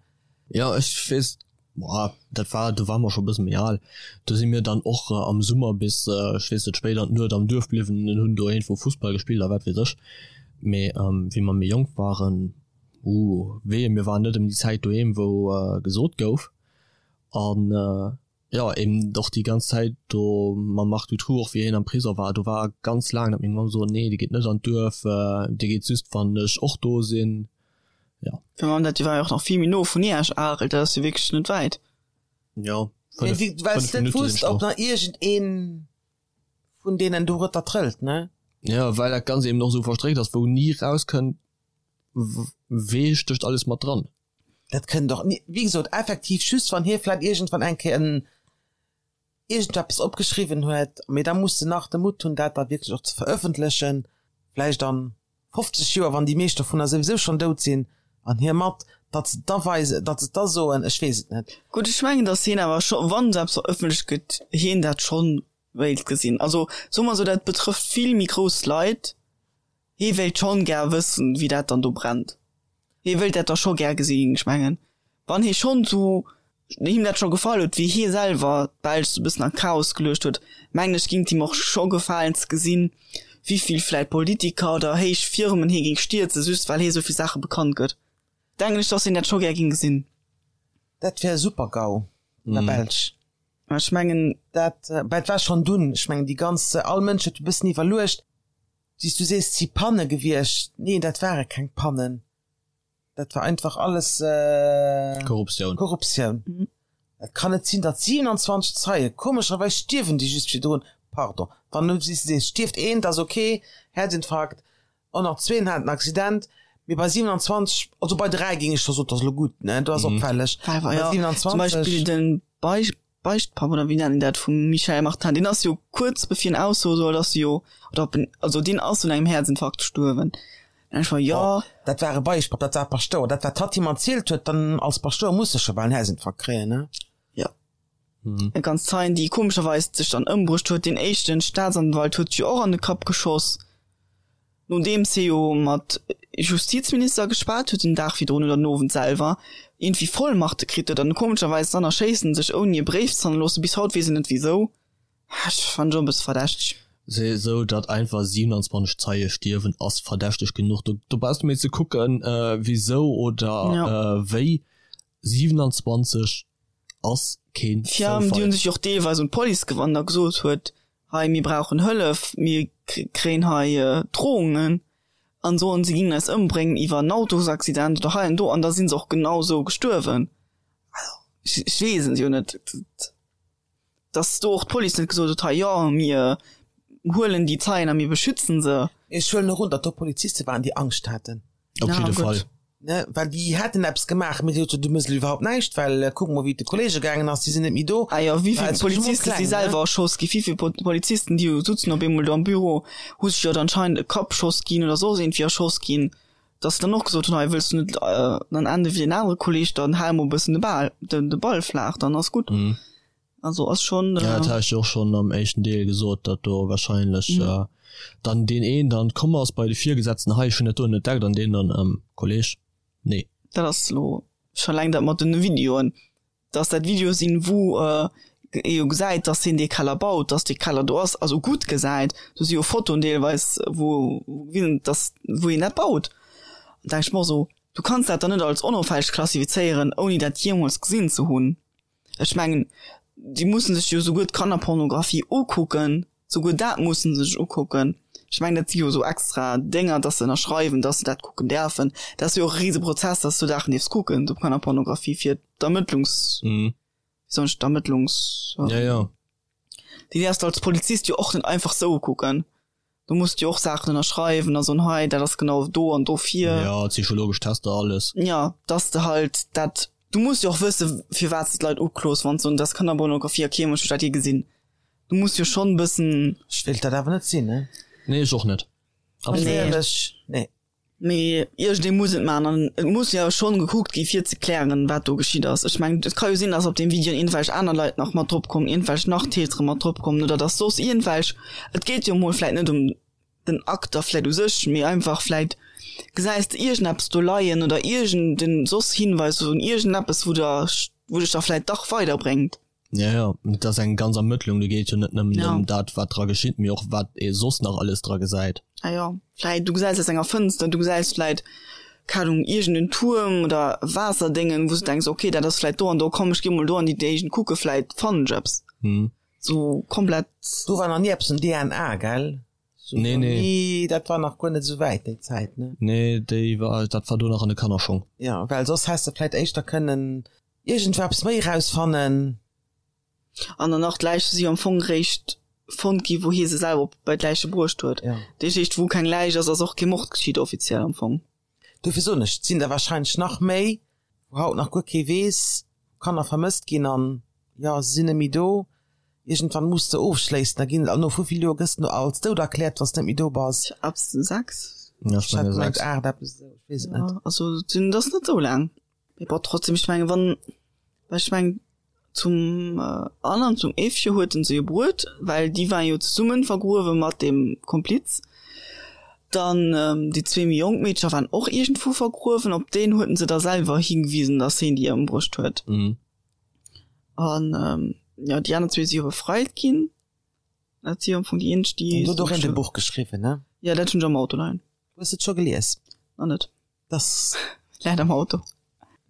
S1: Jo, ech weess, boah, dat war, do ware mer scho e bësse méi al. Do si mir dann och am Summer bis, ech weess net, spéit an d'Nuet am Duerf bliwwen an hunn do iergendwou Fussball gespillt a wat weess ech. Mee wéi mer méi jonk waren, uh, wee, mir waren net ëm déi Zäit doheem, wou gesot gouf. An Jo, eben och déi ganz Zäit do mam Marc Dutroux, och wéi hien am Prisong war, do war ganz laang, datt meng Mamm sot, nee, dee geet net an d'Duerf, dee geet just, wann ech och do sinn. Jo.
S2: Fir Mamm, dat war jo och nach vill méi no vun Iech, Arel, dat ass jo wierklech net wäit.
S1: Jo,
S3: Mee
S1: 5,
S3: wéi, well s
S1: 5
S3: net
S1: Minutte sinn
S3: wusst,
S1: ech do.
S3: ob nach iergendee vun deenen dorueter trëllt, ne?
S1: Jo, well dat Ganzt eben och esou verstréckt ass, wou ni rauskënnt, wee stécht alles mat dran.
S3: Dat kënnt och ni, wéi gesot, effektiv just wann hie vläit iergendwann eng Kéier en iergendeppes opgeschriwwen huet, mee da muss en nach de Mutt hunn, dat da wierklech och ze verëffentlechen, vläicht an 50 Joer, wann déi meescht dovunner souwisou schonn dout sinn an hie mat, datt se et da weisen, datt se et da soen, ech weess et net.
S2: Gutt, ech mengen, datt hien awer scho, wann esou eppes verëffentlecht gëtt, hien dat schonn wéilt gesinn. Also soe mer esou, dat betrëfft vill méi grouss Leit, Hee wéilt schonn gär wëssen, wéi dat dann do brennt. Hee wéilt dat da scho gär gesinn. Ech mengen, wann hee schonn sou, him dat scho gefall huet, wéi hie selwer d'Belsch sou e bëssen an d'Chaos geluecht huet, mengen ech, géing et him och scho gefalen ze gesinn, wéivill vläit Politiker oder héich Firmen hie géing stierzen, just well hie sou vill Saache bekannt gëtt. Denken ech, dass hien dat scho gär géing gesinn.
S3: Dat wär e super Gau an der Belsch.
S2: Ech mengen.
S3: Dat, bah, et war schonn dunn, ech mengen, déi ganz, all Mënsch huet e bëssen iwwerluecht, Wéi s du sees, 't si Panne gewiescht. Neen, dat ware keng Pannen. Dat war einfach alles
S1: Korruptioun.
S3: Korruptioun. Et kann net sinn, datt 27 Zeie, komescherweis stierwen déi just virdrun. Pardon, wann du sees, stierft een, dat ass ok, Häerzinfarkt, och nach zween haten en Accident, mee bei 27, also bei 3 géing ech scho soen, dat ass elo gutt, ne, do ass opfälleg.
S2: Bei 27. Zum Beispill den Beichtpapp, oder wéi nennt een dat, vum Michel Martin, deen ass jo kuerz bevir en aussoe soll, ass jo, oder ob en, also deen ass un engem Häerzinfarkt gestuerwen. Dann ech war, jo.
S3: Dat war e Beichtpapp, dat war e Paschtouer, dat wat hatt him erzielt huet, dann als Paschtouer muss e scho bal en Häerzinfarkt kréien, ne?
S2: Jo. Eng ganz Zeien, déi komescherweis sech dann ëmbruecht huet. Deen éischten Staatsanwalt huet sech jo och an de Kapp geschoss, nodeems hie jo mat Justizminister geschwat huet den Dag virdrun oder den Owend selwer, iergendwéi Vollmachte kritt huet an komescherweis dann erschéisst en sech ouni e Bréif ze hannerloossen. Bis haut weess een net wisou. Ech fannen et och e bësse verdächteg.
S1: Sou datt einfach 27 Zeie stierwen ass verdächteg genuch. Do brauchs de méi ze kucken wisou oder wéi. 27 ass keen
S2: Zoufall. Déi hunn sech jo och deelweis un d'Police gewannt a gesot huet, hei mir brauchen Hëllef, mir kréien hei Drohungen an soen se gingen eis ëmbréngen iwwer en Autosaccident oder hei an do an da sinn se och genau sou gestuerwen. Also ech weess et jo net. Dass do och d'Police net gesot huet, hei jo, mir huelen déi Zeien a mir beschützen se.
S3: Ech huelen och un, datt do Poliziste waren, déi Angscht haten.
S1: Op jidde Fall.
S3: Ne, well déi hätten eppes gemaach, mee déi hu gesot, du méchs elo iwwerhaupt näischt, well kuck mol, wéi et de Kollege gaangen ass, déi sinn net méi do.
S2: Ah jo, wéi vill Poliziste si selwer erschoss ginn, wéi vill Polizisten, déi sutzen op eemol do am Büro, hu sech jo dann anscheinend e Kappschoss ginn oder soss iergendwéi erschoss ginn, dass se dann och gesot hunn, hei wëlls du net dann ende wéi deen anere Kolleg, dann hal mol e bëssen de Bal, de Ball flaach, dann ass gutt. Also ass schon.
S1: Ja, dat hat ech jo och schon am éischten Deel gesot, datt do wahrscheinlech dann deen een dann komm ass bei de Virgesetzten, hei ech hunn dat do entdeckt an deen dann, ähm, Kolleg, nee.
S2: Dat ass elo scho laang dat mat den Videoen, datt dat Videoe sinn, wou ee jo gesäit, datt hien dee Keller baut, datt dee Keller do ass, also gutt gesäit. Do si jo Fotoen deelweis, wou gewisen, datt, wou hien dat baut. An da denk ech mer och esou, du kanns dat dann net als onopfälleg klassifizéieren, ouni dat jeemools gesinn ze hunn. Ech mengen, déi mussen sech jo souguer d'Kannerpornografie ukucken, souguer dat mussen se sech ukucken. Ech mengen, dat si jo esou extra Dénger, dass se ënnerschreiwen, dass se dat kucken däerfen. Dat ass jo och e Riseprozess, dass du Saachen dierfs kucken, sou Kannerpornografie fir d'Ermëttlungs-, wéi soen ech, d'Ermëttlungs-,
S1: Ja, ja.
S2: Déi däerfs de als Polizist jo och net einfach sou ukucken. Du muss jo och Saachen ënnerschreiwen a soen, hei dat ass genau do an dofir.
S1: Ja, psychologesch Tester, alles.
S2: Ja, dass de halt dat, du muss jo och wësse firwat s de d'Leit uklos, wann se soen, dat ass Kannerpornografie a kee Mënsch huet dat jee gesinn. Du muss jo schonn e bëssen.
S3: Ech wéilt dat awer net sinn, ne?
S1: Nee, ech och net.
S2: Absolut net.
S3: Éierlech, nee.
S2: Mee iergendee muss et maachen an et muss jo schonn gekuckt gi fir ze klären, wat do geschitt ass. Ech mengen, et ka jo sinn, datt op deem Video iergendwelch aner Leit nach mat drop kommen, iergendwelch nach Tätere mat drop kommen oder datt soss iergendwelch, et geet jo emol vläit net ëm den Akt da vläit u sech, mee einfach vläit gesäis de iergendeppes do leien oder iergenden soss Hinweis un iergendeppes, wou der, wou dech da vläit dach weiderbréngt.
S1: Ja, ja, et ass eng ganz Ermëttlung, do geet jo net nëmmen ëm dat, wat dra geschitt, mee och wat ee soss nach alles dra gesäit.
S2: Ah jo, vläit du gesäis aus enger Fënster, du gesäis vläit, keng Ahnung, iergend en Tuerm oder Waasserdéngen, wou s du denks, okay, dat ass vläit do an do, komm ech gi mol do an déi Géigend kucke, vläit fannen ech eppes. Sou komplett.
S3: Do war nach ni eppes um DNA, gell?
S1: Sou Nee, nee.
S3: Nee, dat war nach guer net esou wäit déi Zäit, ne?
S1: Nee, déi war, dat war do nach an de Kannerschong.
S3: Jo, well soss häss de vläit éischter kënnen Iergendweppes méi rausfannen.
S2: An dann nach d'Läiche si jo am Fong réischt fonnt gi wou hie se selwer op bei d'Läiche bruecht huet.
S3: Ja.
S2: Dat heescht wou keng Läich ass, ass och kee Mord geschitt offiziell am Fong.
S3: Dofir soen ech, et sinn der wahrscheinlech nach méi, wou haut nach guer kee weess, wou Kanner vermësst ginn an jo, se sinn net méi do. Iergendwann muss de ofschléissen, da ginn, an no wéivill Joer gëss de no als dout erkläert, wann s de net méi do bass?
S2: Ab 6?
S1: Ja, ech
S3: Ech hat
S1: menge
S3: gemengt
S1: 6.
S3: 8, eppes esou, ech weess et net.
S2: Ja, also et sinn, et ass net esou laang. Mee bon, trotzdem, ech mengen, wann, well ech mengen, zum Anne an zum Evche huet en se jo bruet, well déi waren jo zesummen vergruewe mat deem Kompliz. Dann déi zwee méi jonk Meedcher waren och iergendwou vergruewen, op deen huet en se da selwer hingewisen, datt heen déi ëmbruecht huet. An jo, déi aner zwee si jo befreit ginn. Dat si jo am Fong déi eenzeg, déi.
S3: An du huet och een e Buch geschriwwen, ne?
S2: Jo, dat hunn ech am Auto leien.
S3: Hues de et scho gelies?
S2: Nach net.
S3: Das
S2: läit am Auto.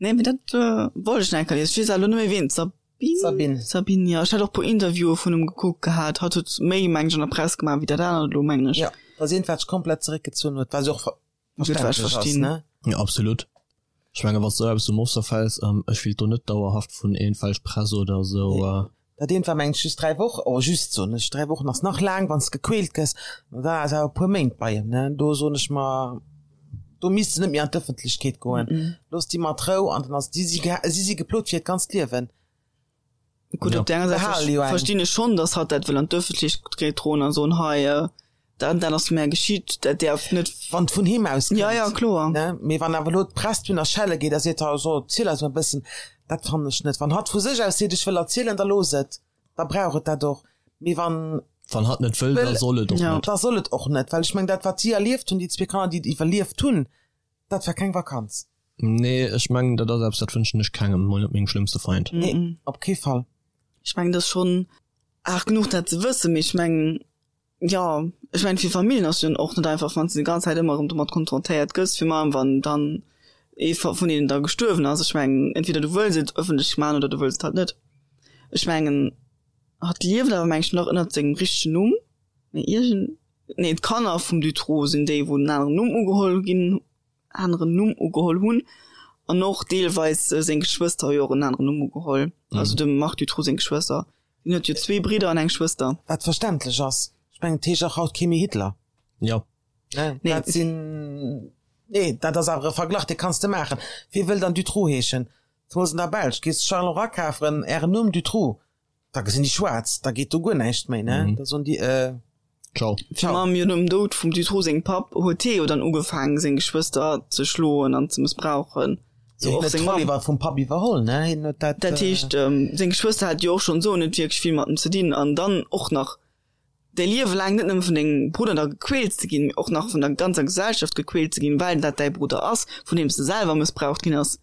S2: Nee, mee dat wollt ech nach eng Kéier liesen. Ech weess awer elo net méi ween. D'Sabine?
S3: Sabine.
S2: Sabine, jo. Ech hat och e puer Interviewe vun em gekuckt gehat. Hatt huet méi, meng ech, an der Press gemaach wéi dat anert elo, mengen ech.
S3: Jo, dass eent wat sech komplett zeréckgezunn huet, wat jo och
S2: Gutt, wat ech
S3: verständlech ass,
S2: verstinn.
S3: ne?
S1: Jo, absolut. Ech menge wann s de esou eppes um Ofser fäls, ech willt do net dauerhaft vun iergendwelch Press oder esou.
S3: Nee. Dat eent war mengen ech just 3 Wochen, oh just soen ech, 3 Wochen ass nach laang wann s de gequält gëss, ma da ass awer e puer Méint bei em, ne, do soen ech mer, do misst se net méi an d'Ëffentlechkeet goen, looss déi mat Rou an dann ass déi si si si geplot fir hiert ganzt Liewen.
S2: Gutt, op där aner Säit verstinn ech schonn, datt hatt dat wëll an d'Ëffentlechkeet droen a soen, hei dat an dat ass mär geschitt, dat däerf net.
S3: Wann et vun him aus
S2: kënnt. Ja, ja, kloer.
S3: Ne, mee wann awer elo d'Press dunn a Schelle geet a seet, ha so, erziel eis mol e bëssen, dat fannen ech net. Wann hatt vu sech aus seet, ech wëll erzielen, da looss et, da brauch et dat och. Mee wann.
S1: Wann hatt net wëll, da soll et och net.
S3: Da soll et och net, well ech mengen, dat wat si erlieft hunn, déi zwee Kanner, déi et iwwerlieft hunn, dat war keng Vakanz.
S1: Nee, ech mengen, dat ass eppes, dat wënschen ech kengem, mol net mengem schlëmmste Feind.
S3: Nee, op kee Fall.
S2: Ech mengen, dat ass schonn aart genuch, dat ze wëssen, mee ech mengen, jo, ech mengen, fir Familljen ass jo och net einfach, wann s de déi ganz Zäit ëmmer erëm domat konfrontéiert gëss, virun allem wann dann ee vun deenen da gestuerwen ass. Ech mengen, entweder du wëlls et ëffentlech maachen oder du wëlls et halt net. Ech mengen, hatt lieft awer, meng ech, nach ënnert sengem richtegen Numm, mee iergend, nee, d'Kanner vum Dutroux sinn déi, wou en aneren Numm ugeholl ginn aneren Numm ugeholl hunn an och deelweis seng Geschwëster hu jo och en aneren Numm ugeholl, also dem Marc Dutroux seng Geschwëster. Hien huet jo zwee Bridder an eng Schwëster.
S3: Wat verständlech ass. Ech mengen, et heescht och haut kee méi Hitler.
S1: Jo.
S3: Ne, dat sinn, nee, dat ass awer e Verglach, dee kanns de maachen. Wie wëll dann Dutroux heeschen? Zemools an der Belsch. Gees de Charleroi kafen, Ären Numm Dutroux. Da gesinn déi schwaarz, da geet do guer näischt méi, ne? Da soen déi, äh.
S1: Ciao.
S2: Fir mam jo nom Doud vum Dutroux sengem Papp huet hie jo dann ugefaangen seng Geschwëster ze schloen an ze mëssbrauchen.
S3: Sou och seng Mamm. Iwwer vum Papp iwwerholl, ne? Hien huet
S2: dat. Dat heescht, seng Geschwëster hat jo och schonn sou net wierklech vill mat em ze dinn an dann och nach däi Liewe laang net nëmme vun dengem Brudder da gequält ze ginn, mee och nach vun der ganzer Gesellschaft gequält ze ginn, well dat däi Brudder ass, vun deem s de selwer mëssbraucht ginn ass.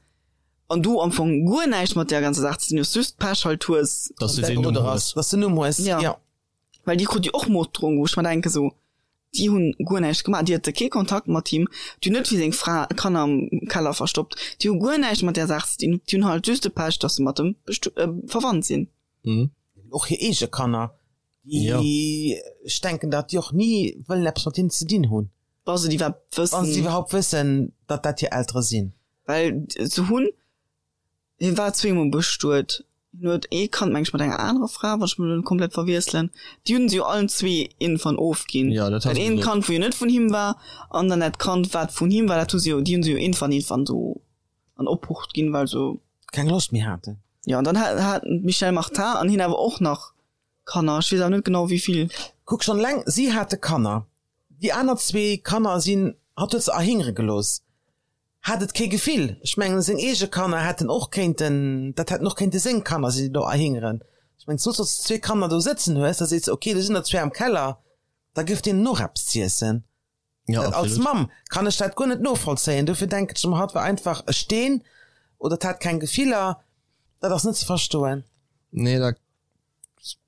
S2: An du am Fong guer näischt mat där ganzer Saach ze dinn hues, just Pech halt hues.
S1: Dass du deen Numm hues.
S3: Dass du Numm hues,
S2: ja. Well déi krut jo och Morddrohung, wou ech mer denken, sou, déi hunn guer näischt gemaach, déi hate kee Kontakt mat him, déi hunn net fir seng Fra Kanner am Keller verstoppt, déi hu guer näischt mat där Saach ze dinn, déi hunn halt just de Pech, dass se mat em verwannt sinn.
S3: Och hir eege Kanner, déi, ech denken, datt déi och ni wëllen eppes mat hinnen ze dinn hunn.
S2: Wa se et iwwerhaapt
S3: wëssen. Wa se et iwwerhaapt wëssen, datt dat hir Eltere sinn.
S2: Well se hunn, hie war zweemol bestuet, hien huet ee Kand meng ech mat enger anerer Fra, wann ech mech elo net komplett verwiesselen, déi hunn se jo allen zwee iergendwann ofginn.
S1: Ja,
S2: dat hat eent Kand wou jo net vun him war an dann dat Kand wat vun him war, dat hu se jo, déi hunn se jo iergendwann iergendwann esou an Obhucht ginn, well se.
S3: Keng Loscht méi haten.
S2: Jo, an dann haten d'Michèle Martin an hien awer och nach Kanner, ech weess awer net genau wéi vill.
S3: Kuck schonn eleng, si hate Kanner, déi aner zwee Kanner sinn, hatt huet se erhingere gelooss. Hat et kee Gefill. Ech mengen, seng eege Kanner hätten och kéinten, dat hätten och kéinte seng Kanner sinn, déi do erhingeren. Ech mengen, soss, wann s de zwee Kanner do sëtzen hues, da sees de, okay, do sinn der zwee am Keller, da gëff deenen och eppes z'iessen.
S1: Ja,
S3: Dat als
S1: absolut.
S3: Mamm kann ech dat guer net novollzéien. Dofir denken ech ëmmer, hatt war einfach e Steen oder 't hat keng Gefiller. Dat ass net ze verstoen.
S1: Nee, dat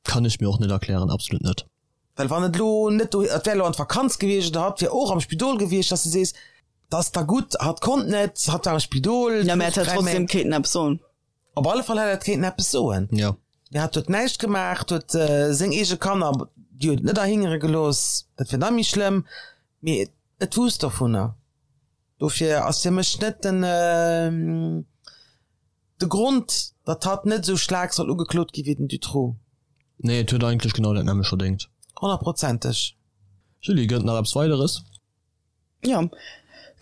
S1: Kann ech mir och net erklären, absolut net.
S3: Well wann et elo net do, et wär elo an d'Vakanz gewiescht oder hatt wär och am Spidol gewiescht, dass de sees, dat ass da gutt, hatt konnt net, hatt war am Spidol.
S2: Ja, mä et hätt trotzdem kéinten eppes soen.
S3: Op alle Fall hätt et kéinten eppes soen.
S1: Jo.
S3: Mee hatt huet näischt gemaach, huet seng eege Kanner, déi huet et net erhingere gelooss, dat wär nach méi schlëmm, mee et wousst dovunner. Dofir ass fir mech net den. De Grond, datt hatt net esou staark soll ugeklot gi wéi den Dutroux.
S1: Nee, et huet eigentlech genau dat nämmlecht verdéngt.
S3: Honnertprozenteg.
S1: Julie, gëtt et nach eppes Weideres?
S2: Jo,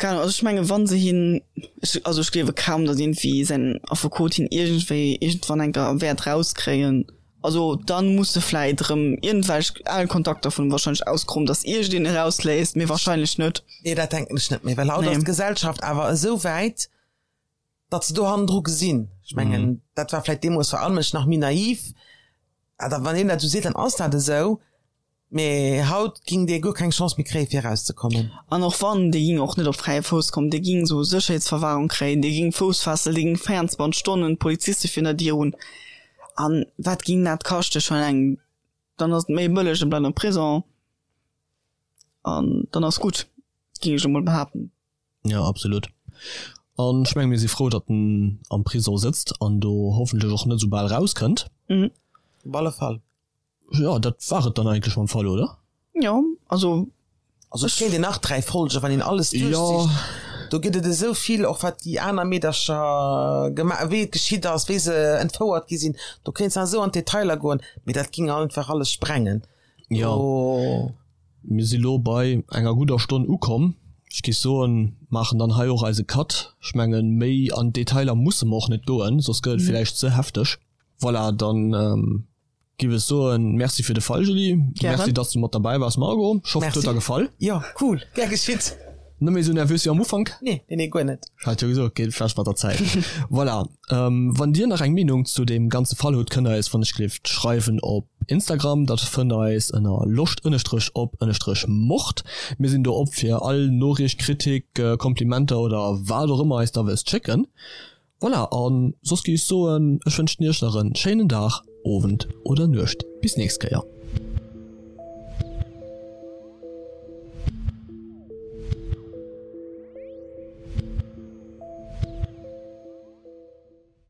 S2: keng Ahnung. Also ech menge wann se hien, ech, also ech gleewe kaum, datt iergendwéi säin Affekot hien iergendwéi iergendwann eng Kéier wäert rauskréien. Also dann muss se vläit erëm iergendwelch al Kontakter vun em wahrscheinlech auskromen, datt iergendeen e rausléisst, mee wahrscheinlech net.
S3: Nee, dat denken ech net méi, well haut ass d'Gesellschaft awer esou wäit, datt se do hannendru gesinn. Ech mengen, dat war vläit deemools vor allem ech nach méi naiv. Awer wann een dat esou seet, dann ass dat esou. Mee haut ging dee guer keng Chance méi kréie fir erauszekommen.
S2: An och wann, dee ging och net op fräie Fouss kommen, dee ging esou Sécherheetsverwahrung kréien, dee ging Foussfessel, dee ging 24 Stonnen Poliziste virun der Dier hunn. An wat ging dat kaschten? Schon eleng, dann ass et méi bëlleg, en bleift am Prison an dann ass gutt, ging ech emol behaapten.
S1: Jo, absolut. An ech menge mir si frou, datt en am Prisong sëtzt an do hoffentlech och net esou bal rauskënnt.
S2: Mhm.
S3: Op alle Fall.
S1: Jo, dat war et dann eigentlech mam Fall, oder?
S2: Jo, also.
S3: Also et kéint een nach 3 Folgen, wann een alles duerchzicht.
S1: Jo.
S3: Do gëtt et esou vill, och wat déi aner Meedercher gema-, wéi et geschitt ass, wéi se entfouert gi sinn. Do kéints nach esou an d'Detailer goen, mee dat ging einfach alles sprengen.
S1: Jo. Mir si lo bei enger gudder Stonn ukomm. Ech géif soen, maachen dann hei och eise Cut. Ech mengen, méi an d'Detailer musse mer och net goen, soss gëtt et villäicht ze hefteg. Voilà, dann Giff ech soen Merci fir de Fall Julie, Merci dass du mat derbäi wars Margot, ech hoffen et huet der gefall.
S3: Jo cool, gär geschitt.
S1: Net méi sou nervös wéi am Ufank?
S3: Nee, nee, nee guer net.
S1: Ech hat jo gesot, geet vläicht mat der Zäit. Voilà, wann dir nach eng Meenung zu deem ganze Fall hutt, kënnt der eis wann ech gleeft schreiwen op Instagram, dat fënnt der eis ënner loscht ënnestrech op ënnestrech mord. Mir sinn do op fir all Noriicht, Kritik, Komplimenter oder wat och ëmmer eis der wëllt schécken. Voilà, an soss géif ech soen, ech wënschen iech nach en schéinen Dag, Owend oder Nuecht. Bis nächst Kéier.